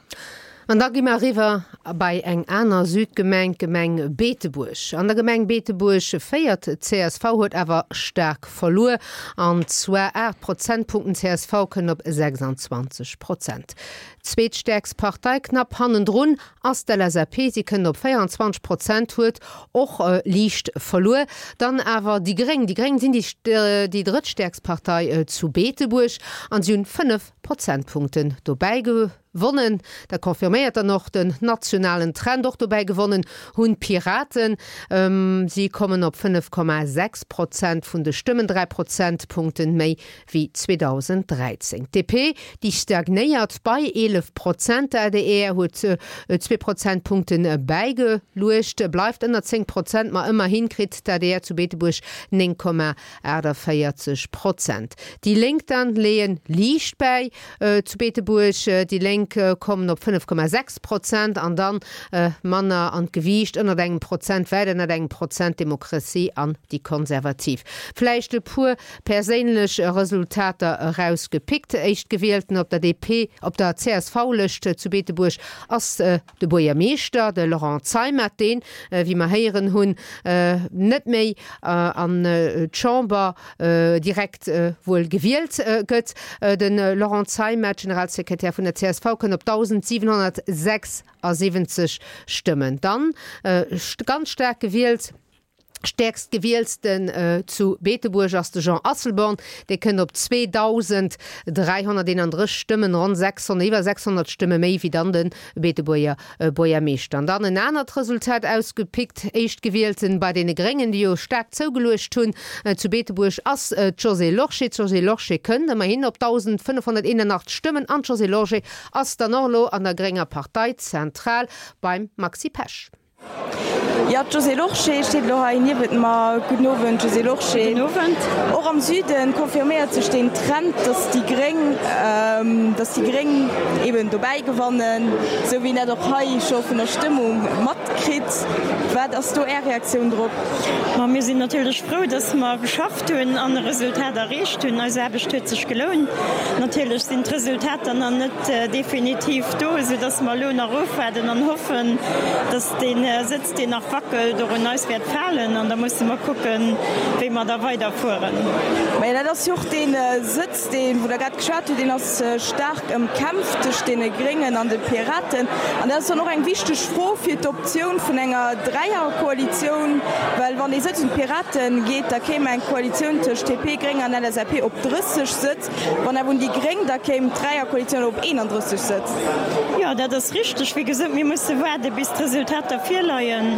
An da gi mer eriwwer bei eng aner Südgemeng, d'Gemeng Beetebuerg. An der Gemeng Beetebuerg féiert d'CSV, huet awer staark verluer, an zwar 8 Prozentpunkten. Csv kënnt op 26 Prozent. Zweetstäerkst Partei, knapp hannendrun, ass d'LSAP, si kënnt op 24 Prozent, huet och liicht verluer. Dann awer déi Gréng. Déi Gréng sinn déi drëttstäerkst Partei zu Beetebuerg an si hunn 5 Prozentpunkten dobäi Gewonnen, dat confirméiert dann och den nationalen Trend. Och dobäi gewonnen hunn d'Piraten. Si kommen op 5,6 Prozent vun de Stëmmen, 3 Prozentpunkten méi wéi 2013. D'DP, déi stagnéiert bei 11 Prozent. D'adr huet zwee Prozentpunkte bäigeluecht, bleift ënner 10 Prozent, ma ëmmerhi kritt d'adr zu Beetebuerg 9,48 Prozent. Déi Lénk dann leeë liicht bäi. Zu Beetebuerg, déi Lénk kommen op 5,6 Prozent an dann manner an d'Gewiicht, ënnert engem Prozent, wäit ënnert engem Prozent, d'Demokratie an déi Konservativ. Vläicht e puer perséinlech Resultater erausgepickt, Éischtgewielten op der DP, op der CSV-Lëscht zu Beetebuerg ass De Buergermeeschter, de Laurent Zeimet, deen, wéi mer héieren hunn, net méi an d'Chamber direkt wuel gewielt gëtt. De Laurent Zeimet, Generalsekretär vun der csv, kënnt op 1.776 Stëmmen. Dann ganz staark gewielt. Stäerkst Gewielsten zu Beetebuerg ass de Jean Asselborn, dee kënnt op 2.331 Stëmmen, ronn 600, iwwer 600 Stëmme méi wéi dann de Beetebuerger Buergermeeschter. An dann en anert Resultat ausgepickt, Éischtgewielten bei deene Gréngen, déi jo staark zougeluecht hunn zu Beetebuerg, ass d'Josée Lorsché. D'Josée Lorsché kënnt ëmmerhin op 1.581 Stëmmen an d'Josée Lorsché ass dann och elo an der grénger Parteizentral beim Maxi Pesch. Jo, d'Josée Lorsché steet elo hei niewent mer. Gudden Owend, Josée Lorsché. Gudden Owend. Och am Süden confirméiert sech deen Trend, datt déi Gréng, datt déi Gréng eben dobäi gewannen, esou wéi een dat och hei scho vun der Stëmmung matkritt. Wat ass do Är Reaktioun drop? Ma mir sinn natierlech frou, datt mer geschafft hunn an e Resultat erreecht hunn. Eis Aarbecht huet sech gelount. Natierlech sinn d'Resultater nach net definitiv do, esou datt mer elo nach ofwaarden an hoffen, datt dee Sëtz, deen nach wackelt, och un eis wäert falen. An da musse mer kucken, wéi mer da weiderfueren. Majo, dat ass jo och dee Sëtz, deen, wou Der grad geschwat hutt, deen ass staark ëmkämpft tëscht deene Gréngen an de Piraten. An dat ass dann och eng wichteg Fro fir d'Optioun vun enger Dräierkoalitioun, well wann dee Sëtz un d'Pirate geet, da kéim eng Koalitioun tëscht DP, Gréng an LSAP op 30 Sëtz. Wann awer un déi Gréng, da kéim d'Dräierkoalitioun op 31 Sëtz. Jo, dat ass richteg. Wéi gesot, mir musse waarde bis d'Resultater virleien.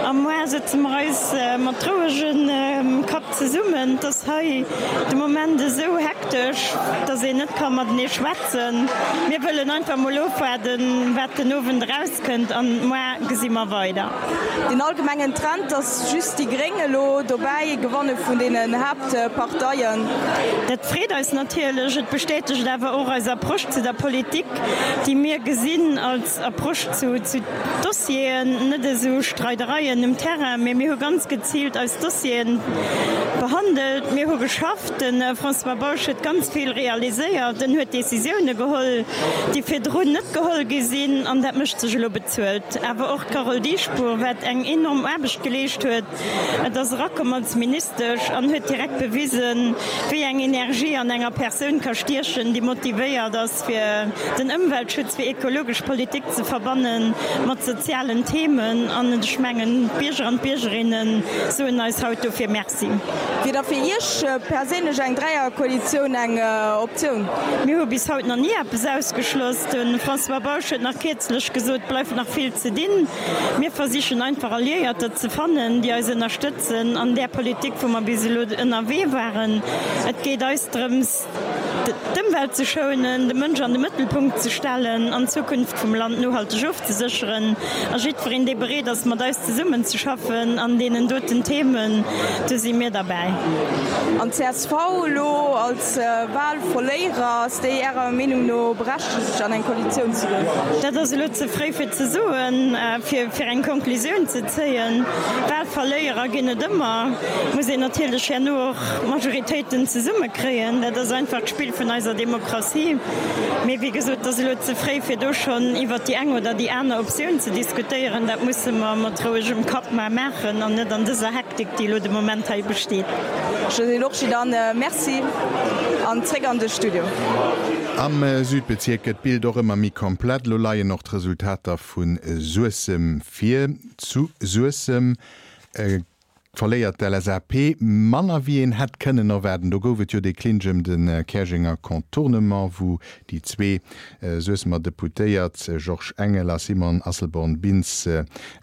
A moar sëtze mer eis mat rouegem Kapp zesummen. Et ass hei de Moment esou hektesch, datt een net ka matenee schwätzen. Mir wëllen einfach mol ofwaarden, wat den Owend erauskënnt an moar gesi mer weider. Den allgemengen Trend, datt just déi Gréng elo dobäi gewanne vun deenen Haaptparteien. Dat freet eis natierlech. Et bestätegt awer och eis Approche zu der Politik, déi mir gesinn als Approche zu Dossieren, net esou Streidereien um Terrain, mee mir hu ganz geziilt eis Dossieren behandelt. Mir hu geschafft. De François Bausch huet ganz vill realiséiert. En huet Décisioune geholl, déi virdrun net geholl gi sinn, an dat mécht sech elo bezuelt. Awer och d'Carole Dieschbourg, wat eng enorm Aarbecht geleescht huet. Et ass erakomm als Ministesch an huet direkt bewisen, wéi eng Energie an enger Persoun ka stiechen, déi motivéiert ass, fir den Ëmweltschutz, fir ekologesch Politik ze verbanne mat sozialen Themen. An ech mengen, d'Bierger an d'Biergerinne soen eis haut dofir Merci. Wier da fir Iech perséinlech eng Dräierkoalitioun eng Optioun? Mir hu bis haut nach ni eppes ausgeschloss. De François Bausch huet nach kierzlech gesot, et bleift nach vill ze dinn. Mir versichen einfach Alliéierter ze fannen, déi eis ënnerstëtzen an där Politik, wou mer bis elo ënnerwee waren. Et geet eis drëms, d'Ëmwelt ze schounen, de Mënsch an de Mëttelpunkt ze stellen an d'Zukunft vum Land nohalteg ofzesécheren. A jiddwereen, dee bereet ass, mat eis zesummenzeschaffen an deenen doten Themen, do si mir derbäi. An d'CSV elo als Wahlverléierer, ass déi Ärer Meenung no berechtegt, an eng Koalitioun ze goen? Dat ass elo ze fréi fir ze soen, fir eng Konklusioun ze zéien. Wahlverléierer ginn et ëmmer. Muss een natierlech herno och Majoritéiten zesummekréien. Dat ass einfach d'Spill vun eiser Demokratie. Mee wéi gesot, et ass elo ze fréi fir do schonn iwwert déi eng oder déi aner Optioun ze diskutéieren. Dat musse mer mat rouegem Kapp mar maachen an net an dëser Hektik, déi elo de Moment hei besteet. Josée Lorsché, Dann Merci an zréck an de Studio. Am Südbezierk gëtt d'Bild och ëmmer méi komplett. Elo leien och d'Resultater vu Suessem vir. Zu Suessem verléiert d'LSAP manner wéi een hätt kënnen erwaarden. Do gouf et jo dee Clinch ëm de Käerjenger Contournement, wou déi zwee Suessemer Deputéiert Georges Engel a Simone Asselborn-Bintz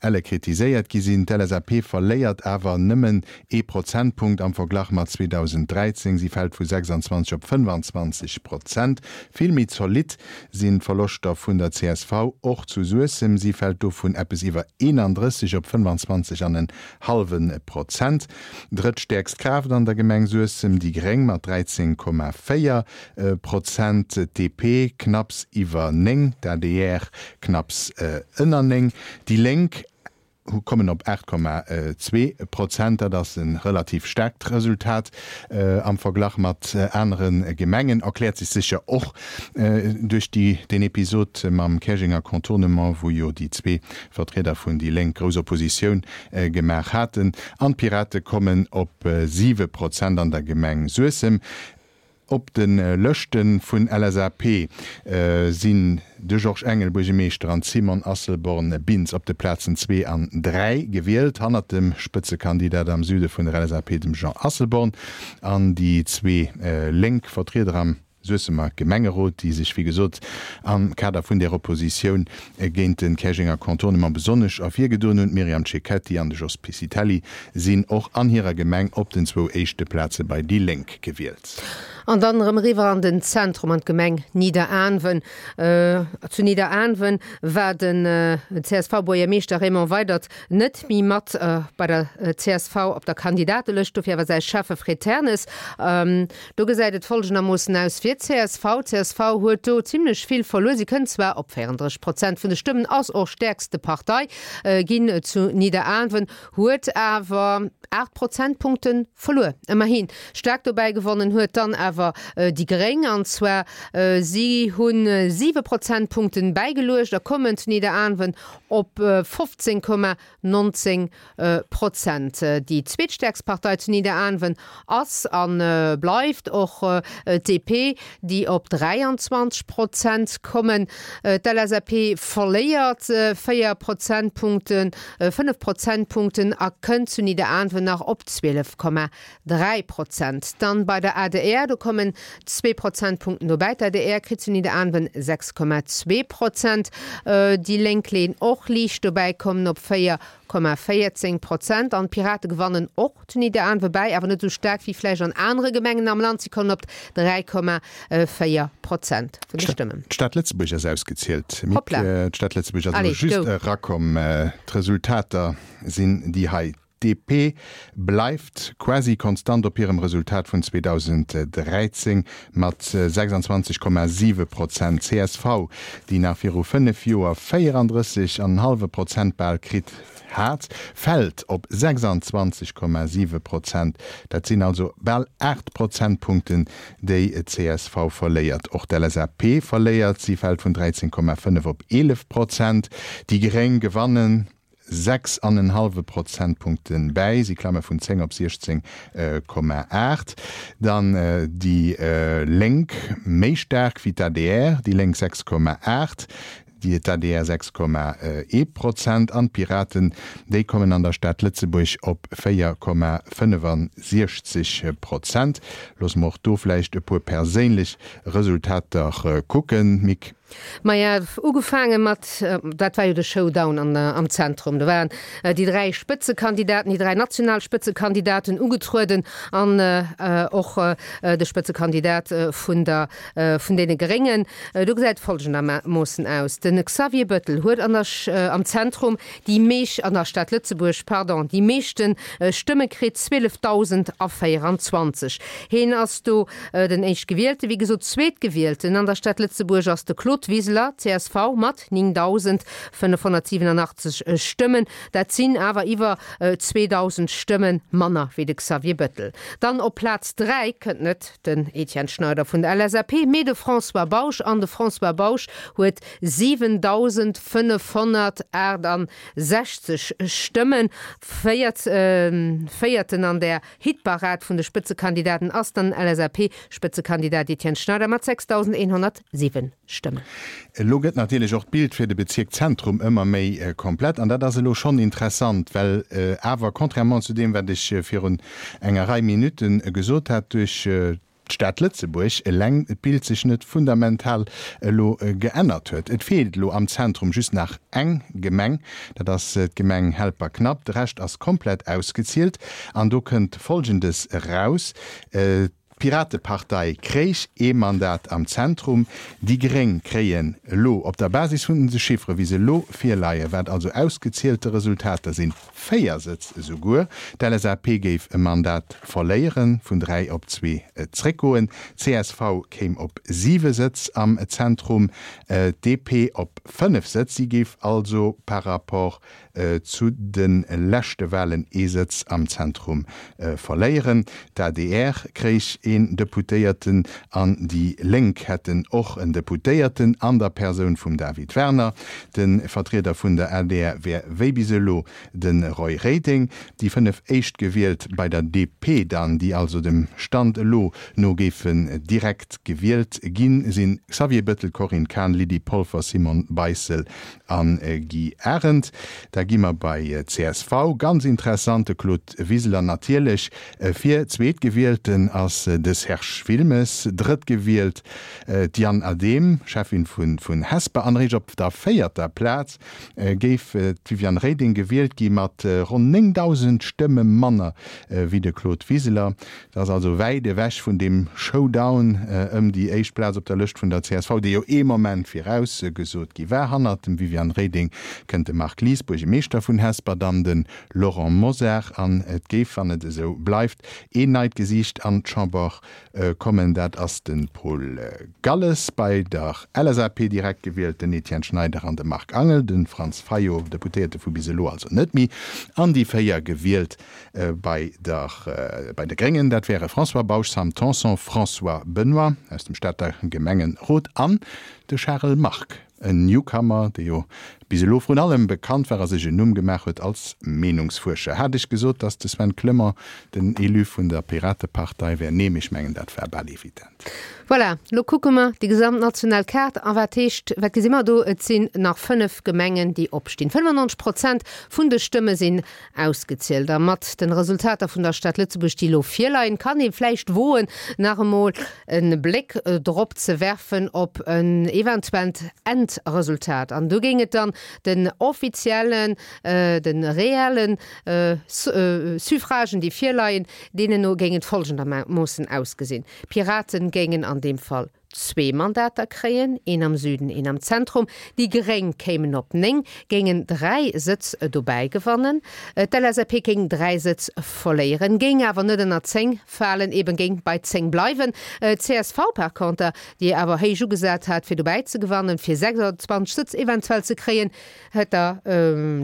elle kritiséiert gi sinn. D'LSAP verléiert awer nëmmen ee Prozentpunkt am Verglach mat 2013, si fält vu 26 op 25 Prozent. Vill méi zolidd sinn d'Verloschter vun der csv, och zu Suessem, si fält do vun eppes iwwer 31 op 25 an en hallwe Prozent. Drëttstäerkst Kraaft an der Gemeng Suessem, déi Gréng mat 13,4 Prozent, d'DP knapps iwwer 9, d'ADR knapps ënner 9, déi Lénk kommen op 8,2 Prozent. Dat ass e relativ staarkt Resultat am Verglach mat anere Gemengen. Erkläert sech sécher och duerch deen Episod mam Käerjenger Contournement, wou jo déi zwee Vertrieder vun déi Lénk grouss Oppositioun gemaach haten. An d'Pirate kommen op 7 Prozent an der Gemeng Suessem. Op de Lëschte vun LSAP sinn de Georges Engel, Buergemeeschter, an d'Simone Asselborn-Bintz op de Plazen 2 an 3 gewielt, hannert dem Spëtzekandidat am Süde vun der LSAP, dem Jean Asselborn. An déi zwee lénk Vertrieder am Suessemer Gemengerot, déi sech wéi gesot am Kader vun där Oppositioun géint de Käerjenger Contournement besonnesch ervirgedoen hunn, d'Myriam Cecchetti an de Jos Piscitelli, sinn och an hirer Gemeng op den zwou éischte Plaze bei déi Lénk gewielt. An dann erëm eriwwer an den Zentrum, an d'Gemeng Nidderaanwen. Zu Nidderaanwen war den CSV-Buergermeeschter Raymond Weydert net méi mat bei der csv op der Kandidatelëscht, dofir awer säi Schäffe Fred Ternes. Do gesäit et folgendermoossen aus fir d'CSV, D'CSV huet do zimmlech vill verluer. Si kënnt zwar op 34 Prozent vun de Stëmmen, ass och stäerkste Partei ginn zu Nidderaanwen, huet awer 8 Prozentpunkte verluer. Ëmmerhi staark dobäi gewonnen huet dann awer déi Gréng, an zwar si hu 7 Prozentpunkte bäigeluecht a kommen zu Nidderaanwen op 15,19 Prozent. Déi zweetstäerkst Partei zu Nidderaanwen ass a bleift och d'DP, déi op 23 Prozent kommen. D'LSAP verléiert 4 Prozentpunkten, 5 Prozentpunkten a kënnt zu Nidderaanwen nach op 12,3 Prozent. Dann bei der adr, do kommen zwee Prozentpunkten dobäi. D'adr kritt zu Nidderaanwen 6,2 Prozent. Déi Lénk leeën och liicht dobäi, kommen op 4,14 Prozent. An d'Pirate gewannen och zu Nidderaanwe bäi, awer net esou staark wéi vläicht an anere Gemengen am Land. Si kommen op 3,4 Prozent vun de Stëmmen. D'Stad Lëtzebuerg ass ausgezielt. Mick, d'Stad Lëtzebuerg ass elo just erakomm. D'Resultater sinn déi hei. D'DP bleift quasi konstant op hirem Resultat vun 2013 mat 26,7 Prozent. Csv, déi nach viru 5 Joer 34 an en hallwe Prozent bal kritt hat, fält op 26,7 Prozent. Dat sinn also bal 8 Prozentpunkten, déi d'CSV verléiert. Och d'LSAP verléiert, si fält vun 13,5 op 11 Prozent. Déi Gréng gewannen 6 an en hallwe Prozentpunkte bäi, si klamme vun 10 op 16,8. Dann déi Lénk méi staark wéi d'ADR, déi Lénk 6,8, d'ADR 6,1 Prozent an d'Piraten, déi kommen an der Stad Lëtzebuerg op 4,65 Prozent. Loosse mer och do vläicht e puer perséinlech Resultater kucken, Mick. Maja, ugefaange mat, dat war jo de Showdown an am Zentrum, do waren déi 3 Spëtzekandidaten, déi 3 national Spëtzekandidaten ugetrueden an och de Spëtzekandidat vun der, vun deene Gréngen. Do gesäit et folgendermoossen aus, De Xavier Bettel huet an der, am Zentrum déi meesch, an der Stad Lëtzebuerg, pardon, déi meeschte Stëmme kritt, 12.024. Heen ass do den Éischtgewielte. Wéi gesot, Zweetgewielten an der Stad Lëtzebuerg ass de Claude Wiseler, csv, mat 9.587 Stëmmen. Dat sinn awer iwwer 2.000 Stëmme manner wéi de Xavier Bettel. Dann op Plaz 3 kënnt net den Etienne Schneider vun der LSAP, mee de François Bausch. An de François Bausch huet 7.568 Stëmmen. Véierten an der Hitparad vun de Spëtzekandidaten ass dann LSAP-Spëtzekandidat Etienne Schneider mat 6.107 Stëmmen. Elo gëtt natierlech och d'Bild fir de Bezierk Zentrum ëmmer méi komplett an dat ass elo schonn interessant, well awer, contrairement zu deem, wat ech virun enger Rei Minutte gesot hat, duerch d'Stad Lëtzebuerg eleng d'Bild sech net fundamental elo geännert huet. Et feelt elo am Zentrum just nach eng Gemeng, dat ass d'Gemeng Helperknapp. De Rescht ass komplett ausgezielt an do kënnt Folgendes eraus, D'Piratepartei kréich ee Mandat am Zentrum, déi Gréng kréien elo op der Basis vun de Chiffere wéi se elo virleien, wat also ausgezielte Resultater sinn, 4 Sëtz esouguer. D'LSAP géif e Mandat verléieren, vun 3 op zwee zréckgoen. Csv kéim op 7 Sëtz am Zentrum, d'DP op 5 Sëtz. Si géif also par rapport zu de leschte Walen ee Sëtz am Zentrum verléieren. D'ADR kréich een Deputéierten an déi Lénk hätten och en Deputéierten an der Persoun vum David Werner. De Vertrieder vun der adr wär wéi bis elo de Roy Reding. Déi 5 Éischtgewielt bei der DP dann, déi also dem Stand elo no géifen direkt gewielt ginn, sinn Xavier Bettel, Corinne Cahen, Lydie Polfer, Simone Beissel a Guy Arendt. Da gi mer bei csv. Ganz interessant, de Claude Wiseler natierlech fir. Zweetgewielten ass de Serge Wilmes, drëttgewielt d'Diane Adehm, Cheffin vun Hesper an eréischt op der véierter Plaz géif d'Viviane Reding gewielt gi mat ronn 9.000 Stëmme manner wéi de Claude Wiseler. Dat ass also wäit ewech vun deem Showdown ëm déi éischt Plaz op der Lëscht vun der csv, dee jo ee Moment viraus gesot gi war. Hannert dem Viviane Reding kënnt de Marc Lies, Buergemeeschter vun Hesper, dann de Laurent Mosar an et géif, wann et esou bleift, een neit Gesiicht an d'Chamber kommen, dat ass de Paul Galles. Bei der LSAP direkt gewielt den Etienne Schneider an de Marc Angel, de Franz Fayot, Deputéierte vu bis elo also net méi, an déi 4 gewielt bei der bei de Gréngen, dat wäre François Bausch, Sam Tanson, François Benoy aus dem Stater Gemengerot an de Charel Margue. En Newcomer, dee jo bis elo vrun allem bekannt war a sech en Numm gemaach huet als Meenungsfuerscher. Hat ech gesot, datt de Sven Clement den Élu vun der Piratepartei wär? Nee, mee ech mengen, dat war bal evident. Voilà, lo kucke mer déi gesamt national Kaart. A wat heescht, wat gesi mer do? Et sinn nach 5 Gemengen, déi opstinn. 95 Prozent vun de Stëmme sinn ausgezielt. A mat den Resultater vun der Stad Lëtzebuerg, déi elo virleien, kann ee vläicht woen, nach emol e Bléck drop ze werfen op en eventuellt Endresultat. An do géing et dann den offiziellen, de reellen Suffragen, déi virleien, deenen no géing et folgendermoossen ausgesinn, D'Piraten géingen an deem Fall zwee Mandater kréien, een am Süden, een am Zentrum. Déi Gréng kéimen op 9, géingen 3 Sëtz dobäi gewannen. D'LSAP géing 3 Sëtz verléieren, géing awer net ënner 10 falen, eben géing bei 10 bleiwen. D'CSV par conter, déi awer héich ugesat hat fir dobäi ze gewannen, fir 26 Sëtz eventuell ze kréien, hätt der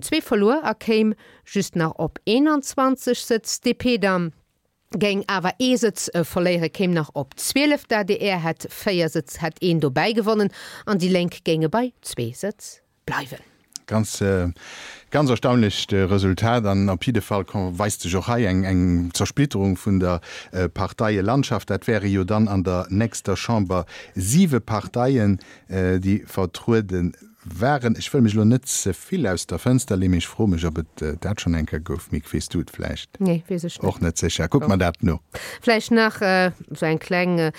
zwee verluer a kéim just nach op 21 Sëtz. D'DP dann géing awer ee Sëtz verléieren, kéim nach op 12, d'ADR hätt 4 Sëtz, hätt een dobäi gewonnen an déi Lénk géinge bei zwee Sëtz bleiwen. Ganz, ganz erstaunlecht Resultat an op jidde Fall weist sech och hei eng Zersplitterung vun der Parteielandschaft. Dat wäre jo dann an der nächster Chamber siwe Parteien, déi vertruede Waren. Ech wëll mech elo net ze vill aus der Fënster leeën, mee ech froe mech, ob et dat schonn eng Kéier gouf. Mick, weess du et vläicht? Nee, weess ech net. Och net sécher. Kuck mer dat no. Vläicht nach esou eng kleng,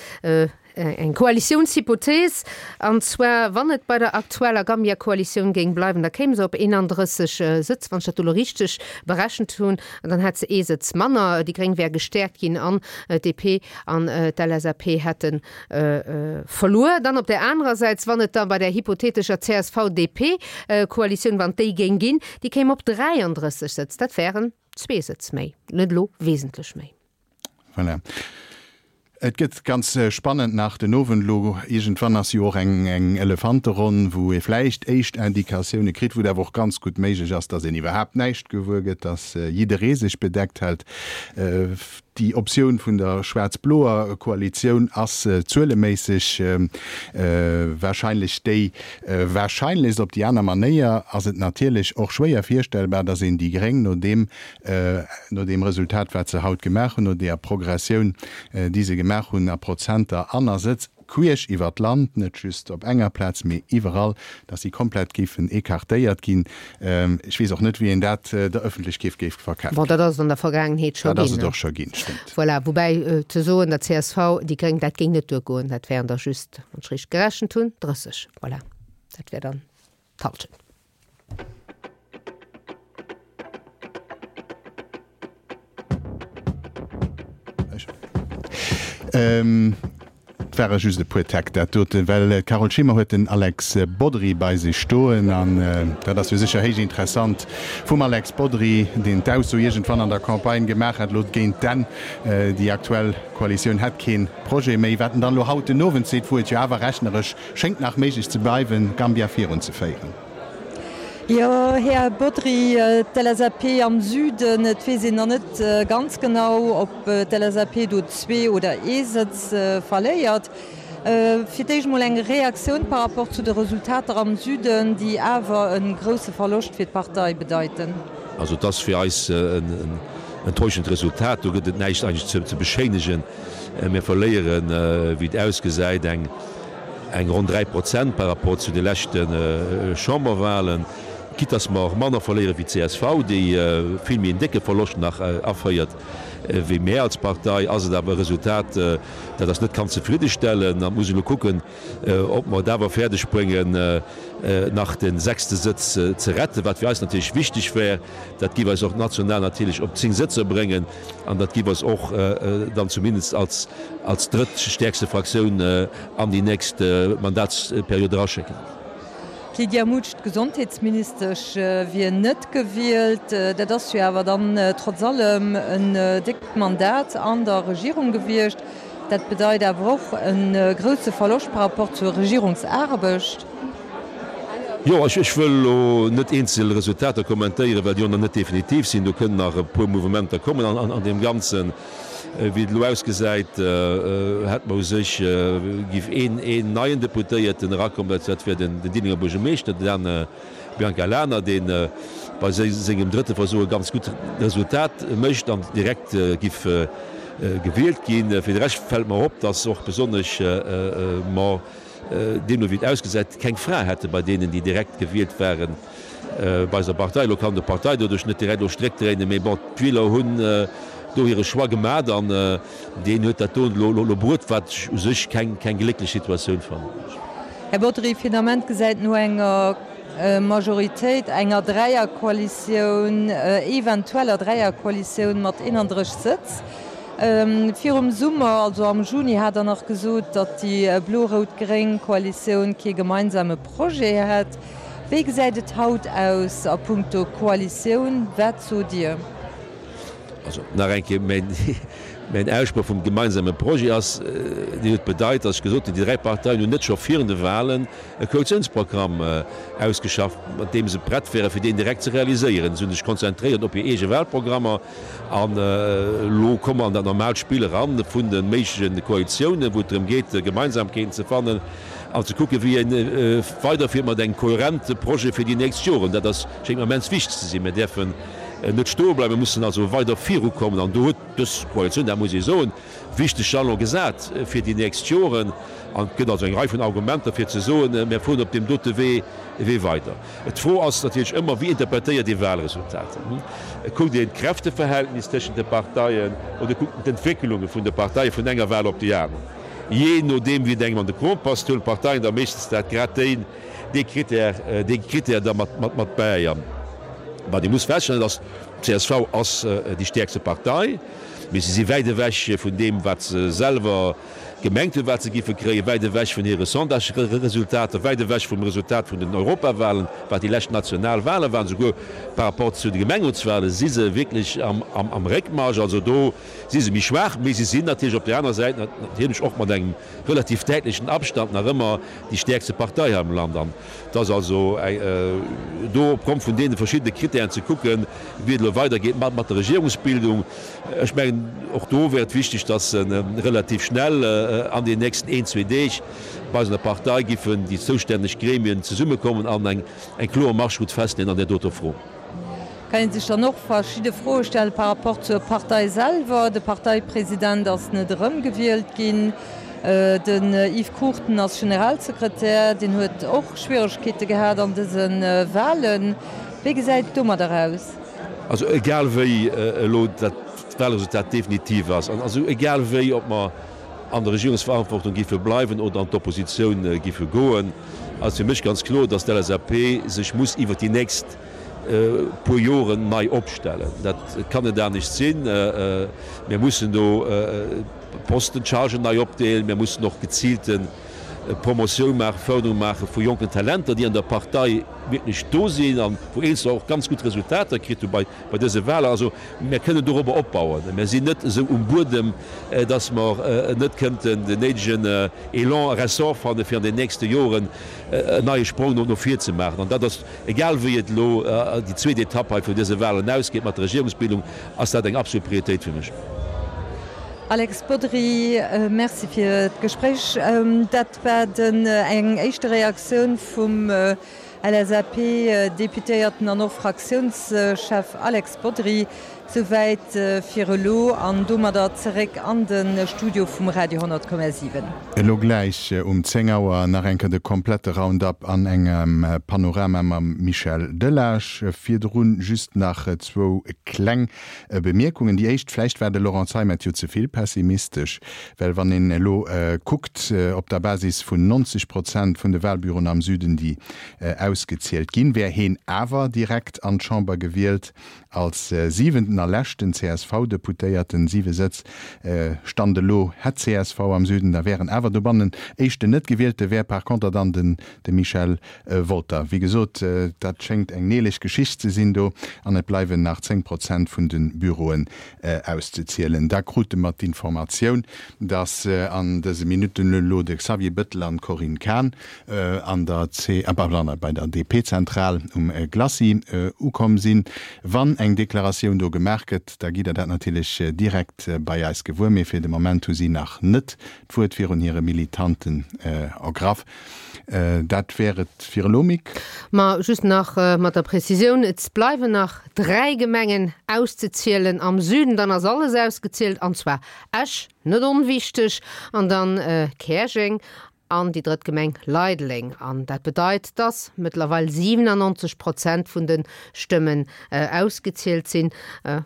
eng Koalitiounshypothees, an zwar, wann et bei der aktueller Gambia-Koalitioun géing bleiwen, da kéim se op 31 Sëtz, wann ech dat do elo richteg berechent hunn, an dann hätt se ee Sëtz manner. Déi Gréng wäre gestäerkt ginn an d'DP an d'LSAP hätten Verluer. Dann op där anerer Säit, wann et da bei där hypothetescher CSV-DP-Koalitioun, wann et déi géing ginn, déi kéim op 33 Sëtz, dat wären zwee Sëtz méi, net elo wesentlech méi. Voilà. Et gëtt ganz spannend nach den Owend elo. Iergendwann ass jo och eng Elefanteronn, wou ee vläicht éischt Indikatioune kritt, wou et awer och ganz gutt méiglech ass, datt een iwwerhaapt näischt gewuer gëtt, datt jidderee sech bedeckt hält. Déi Optioun vun der schwaarz-bloer Koalitioun ass zueleméisseg warscheinlech déi warscheinlechst. Op déi aner Manéier ass et natierlech och schwéier virstellbar, datt een déi Gréng no deem, no deem Resultat wat se haut gemaach hunn, no deeër Progressioun déi se gemaach hunn a Prozenter an a Sëtz, queesch iwwer d'Land, net just op enger Plaz, mee iwwerall, dass si komplett géifen écartéiert ginn. Ech weess och net, wéi een dat der Ëffentlechkeet géif verkafen. Bon, dat ass et an der Vergaangenheet scho ginn. Dat ass et och scho ginn, stëmmt. Voilà, woubäi ze soen, der csv, déi Gréng, dat géing net duergoen, dat wären der just, wann ech richteg gerechent hunn, 30. Voilà, dat wär dann d'Hallschent. Et ware just e puer Täck dat doten, well d'Carole Schimmer huet den Alex Bodry bei sech stoen an dat ass jo sécher héich interessant vum Alex Bodry, deen d'Ausso iergendwann an der Campagne gemaach hat, elo géint d'Enn, déi aktuell Koalitioun hätt kee Projet méi. Wat en dann elo haut den Owend seet, wou et jo awer rechneresch schéngt nach méiglech ze bleiwen, Gambia virunzeféieren. Jo, Här Bodry, d'LSAP am Süden, et weess een nach net ganz genau, ob d'LSAP do zwee oder ee Sëtz verléiert. Fir d'éischt emol eng Reaktioun par rapport zu de Resultater am Süden, déi awer e grousse Verloscht fir d'Partei bedeiten. Also et ass fir eis en enttäuschend Resultat. Do gëtt et näischt eigentlech ze beschéinegen. Mir verléieren, wéi et ausgesäit, eng eng ronn 3 Prozent par rapport zu de leschte Chamberwahlen. Quitte dass mer manner verléiere wéi d'CSV, déi vill méi en décke Verloscht nach aféiert wéi mär als Partei, ass et awer e Resultat, dat eis net kann zefriddestellen. An et muss een elo kucken, ob mer et awer fäerdeg bréngen, nach de sechste Sëtz ze retten, wat fir eis natierlech wichteg wär. Dat géif eis och national natierlech op 10 Sëtzer bréngen an dat géif eis och dann zumindest als als drëttstäerkste Fraktioun an déi nächst Mandatsperiod eraschécken. D'Lydia Mutsch, d'Gesondheetsministesch, wier net gewielt. Dat ass jo awer dann trotz allem en déckt Mandat an der Regierung gewiescht. Dat bedeit awer och e grousse Verloscht par rapport zur Regierungsaarbecht. Jo, ech wëll elo net eenzel Resultater kommentéieren, well déi och nach net definitiv sinn. Do kënnen nach e puer Mouvementer kommen an deem Ganzen. Wéi et elo ausgesäit, hätt mer u sech, giff een een neien Deputéierten erakommen, dat wär den Diddenger Buergermeeschter, den Dan Biancalana, dee bei sengem drëtte Versuch e ganz gutt Resultat mécht an direkt giff gewielt ginn. Fir de Rescht fält mer op, datt och besonnesch mer, deemno wéi et ausgesäit, keng Fra hätte bei deenen, déi direkt gewielt waren bei eiser Partei. Elo kann de Partei doduerch net direkt elo Stréck dréinen, mee bon, d'Wieler hunn do hire Choix gemat an deen huet dat do elo bruet, wat ech u sech keng glécklech Situatioun fannen. Här Bodry, fir den Ament gesäit no enger Majoritéit, enger Dräierkoalitioun, eventueller Dräierkoalitioun mat 31 Sëtz Virum Summer, also am Juni, hat Der nach gesot, datt déi blo-rout-gréng Koalitioun kee gemeinsame Projet hätt. Wéi gesäit et haut aus a punkto Koalitioun? Wat sot Dir? Also nach eng Kéier, mäin Aussproch vum gemeinsame Projet ass, deen huet bedeit, datt ech gesot hunn, déi 3 Parteien hunn net scho virun de Wahlen e Koalitiounsprogramm ausgeschafft, mat deem se prett wären, fir deen direkt ze realiséieren. Se hunn sech konzentréiert op hir eege Wahlprogrammer. An elo komme mer an dat normaalt Spill eran vun de méigleche Koalitiounen, wou et drëm geet, Gemeinsamkeeten ze fannen an ze kucken, wéi ee weiderfiert mat engem kohärente Projet fir déi nächst Joren. Dat ass, schéngt mer immens wichteg ze sinn. Mir däerfen net stoe bleiwen, mir mussen also weider virukommen. An do huet dës Koalitioun, dat muss ee soen, wichteg Jalon gesat fir déi nächst Joren. An et gëtt also eng Rei vun Argumenter, fir ze soen, mir fueren op deem dote Wee weider. D'Fro ass natierlech ëmmer, Wéi interpretéiert ee Wahlresultater? Kuckt een d'Kräfteverhältnis tëschent de Parteien oder kuckt een d'Entwécklunge vun de Parteie vun enger Wahl op déi aner? Jee nodeem wéi et engem an de Krom passt, huelen d'Parteien da meeschtens dat grad déi, dee Critère, dee Critère da mat, mat, mat bäi. An wat ee muss feststellen, dat ass, d'CSV ass déi stäerkste Partei, mee se si wäit ewech vun deem, wat se selwer, Gemengt hunn, wat se giffe kréien, wäit ewech vun hire Sondage-Resultater, wäit ewech vum Resultat vun den Europawahlen, wat déi lescht national Wahlen waren, souguer par rapport zu de Gemengerotswahlen si se wierklech am Réckmarsch. Also do si se méi schwaach, mee se sinn natierlech op där aner Säit natierlech och mat engem relativ däitlechen Abstand nach ëmmer déi stäerkste Partei hei am Land. An et ass also do opgrond vun deene verschiddene Kritären ze kucken, wéi et elo weidergeet mat der Regierungsbildung. Ech mengen, och do wär et wichteg, dass relativ schnell an den nächsten een, zwee Deeg bei eis an der Partei giffen déi zoustänneg Gremien zesummekommen an eng kloer Marschroute festleeën an där doter Fro. Kann ee sech dann och verschidde Froe stelle par rapport zur Partei selwer. De Parteipresident ass net erëmgewielt ginn. Den Yves Cruchten ass Generalsekretär, deen huet och Schwieregkeete gehat an dëse Wahlen. Wéi gesäit et domadder aus? Also egal wéi elo dat Wahlresultat definitiv ass, an also egal wéi, ob mer an der Regierungsverantwortung géife bleiwen oder an d'Oppositioun géife goen, ass fir mech ganz kloer, dass d'LSAP sech muss iwwert déi nächst puer Joren nei opstellen. Dat kann net anescht sinn. Mir mussen do d'Posten, d'Chargen nei opdeelen. Mir mussen och geziilte Promotioun maachen, Förderung maache vu jonken Talenter, déi an der Partei wierklech do sinn an wou eenzeler och ganz gutt Resultater kritt hu bei dëse Wahlen. Also mir kënnen dorobber opbauen. Mir sinn net esou um Buedem, datt mer net kënnten den néidegen Elan a Ressort fanne fir an den nächste Joren en neie Sprong no vir ze maachen. An dat ass, egal wéi et elo déi zweet Etapp hei vun dëse Wahlen ausgeet mat der Regierungsbildung, ass dat eng absolut Prioritéit fir mech. Alex Bodry, Merci fir d'Gespréich. Dat war den eng éischte Reaktioun vum LSAP-Deputéierten an och Fraktiounschef Alex Bodry. Souwäit fir elo an domadder zeréck an de Studio vum Radio 10,7. Elo gläich um 10 Auer nach eng Kéier de komplette Roundup an engem Panorama mam Michel Delage. Virdrun just nach zwou kleng Bemierkungen. Déi éischt, Vläicht war de Laurent Zeimet jo ze vill pessimistesch, well wann een elo kuckt, op der Basis vun 90 Prozent vun de Wahlbüroen am Süden, déi ausgezielt ginn, wär heen awer direkt an d'Chamber gewielt Als siwenten a leschten CSV-Deputéierten, siwe Sëtz, Stand elo, hätt csv am Süden, da wären awer dobannen éischten Net-Gewielte wär par conter dann den de Michel Wolter. Wéi gesot, dat schéngt eng neelech Geschicht ze sinn do an et bleiwen nach 10 Prozent vun de Büroen auszezielen. Da krute mer d'Informatioun, datt an dëse Minutten elo de Xavier Bettel an d'Corinne Cahen an der C, pardon, bei der DP-Zentral um Glacis ukomm sinn. Wann eng Deklaratioun do gemaach gëtt, da gitt Der dat natierlech direkt bei eis gewuer. Mee fir de Moment hu si nach net d'Wuert virun hire Militanten ergraff. Dat wär et fir elo, Mick. Ma just nach mat der Prezisioun, Et bleiwen nach 3 Gemengen auszezielen am Süden, dann ass alles ausgezielt, an zwar Esch, net onwichteg, an dann Käerjeng an déi drëtt Gemeng Leideleng. An dat bedeit, dass mëttlerweil 97 Prozent vun de Stëmmen ausgezielt sinn.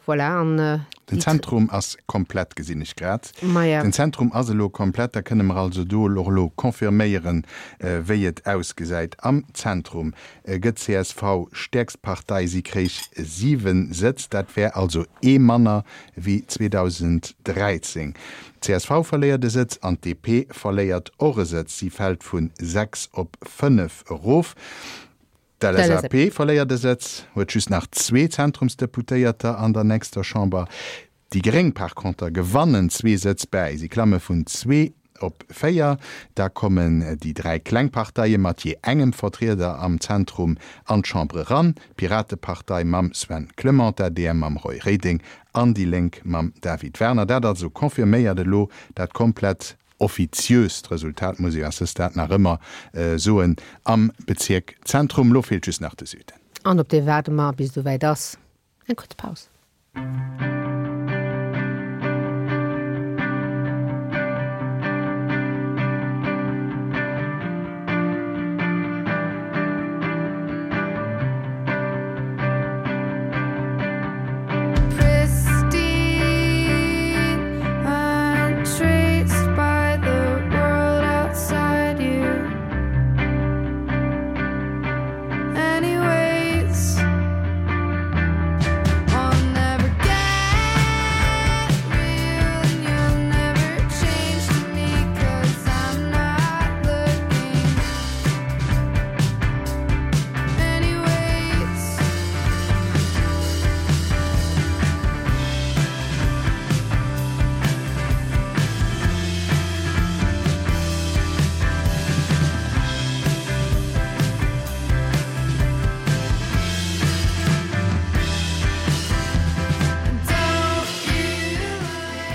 Voilà, an déi. Den Zentrum ass komplett, gesinn ech grad. Maja. Den Zentrum ass elo komplett. Da kënne mer also do och elo confirméieren, wéi et ausgesäit. Am Zentrum gëtt csv stäerkst Partei, si kréich 7 Sëtz, dat wär also ee manner wéi 2013. Csv verléiert e Sëtz an d'DP verléiert och e Sëtz, si fält vu 6 op 5 erof. D'LSAP verléiert e Sëtz, huet just nach zwee Zentrumsdeputéierter an der nächster Chamber. Déi Gréng par conter gewannen zwee Sëtz bäi, si klamme vun zwee op 4. Da kommen déi 3 kleng Parteie mat jee engem Vertrieder am Zentrum an d'Chambre eran, d'Piratepartei mam Sven Clement, d'ADR mam Roy Reding an déi Lénk mam David Werner. Dat also confirméiert elo dat komplett offiziöst Resultat, muss ee à ce stade nach ëmmer soen, am Bezierk Zentrum. Elo feelt just nach de Süden. An op dee waarde mer, bis et esouwäit ass. Eng kuerz Paus.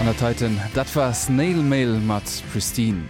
An dat heiten, dat war Snail Mail mat Pristine.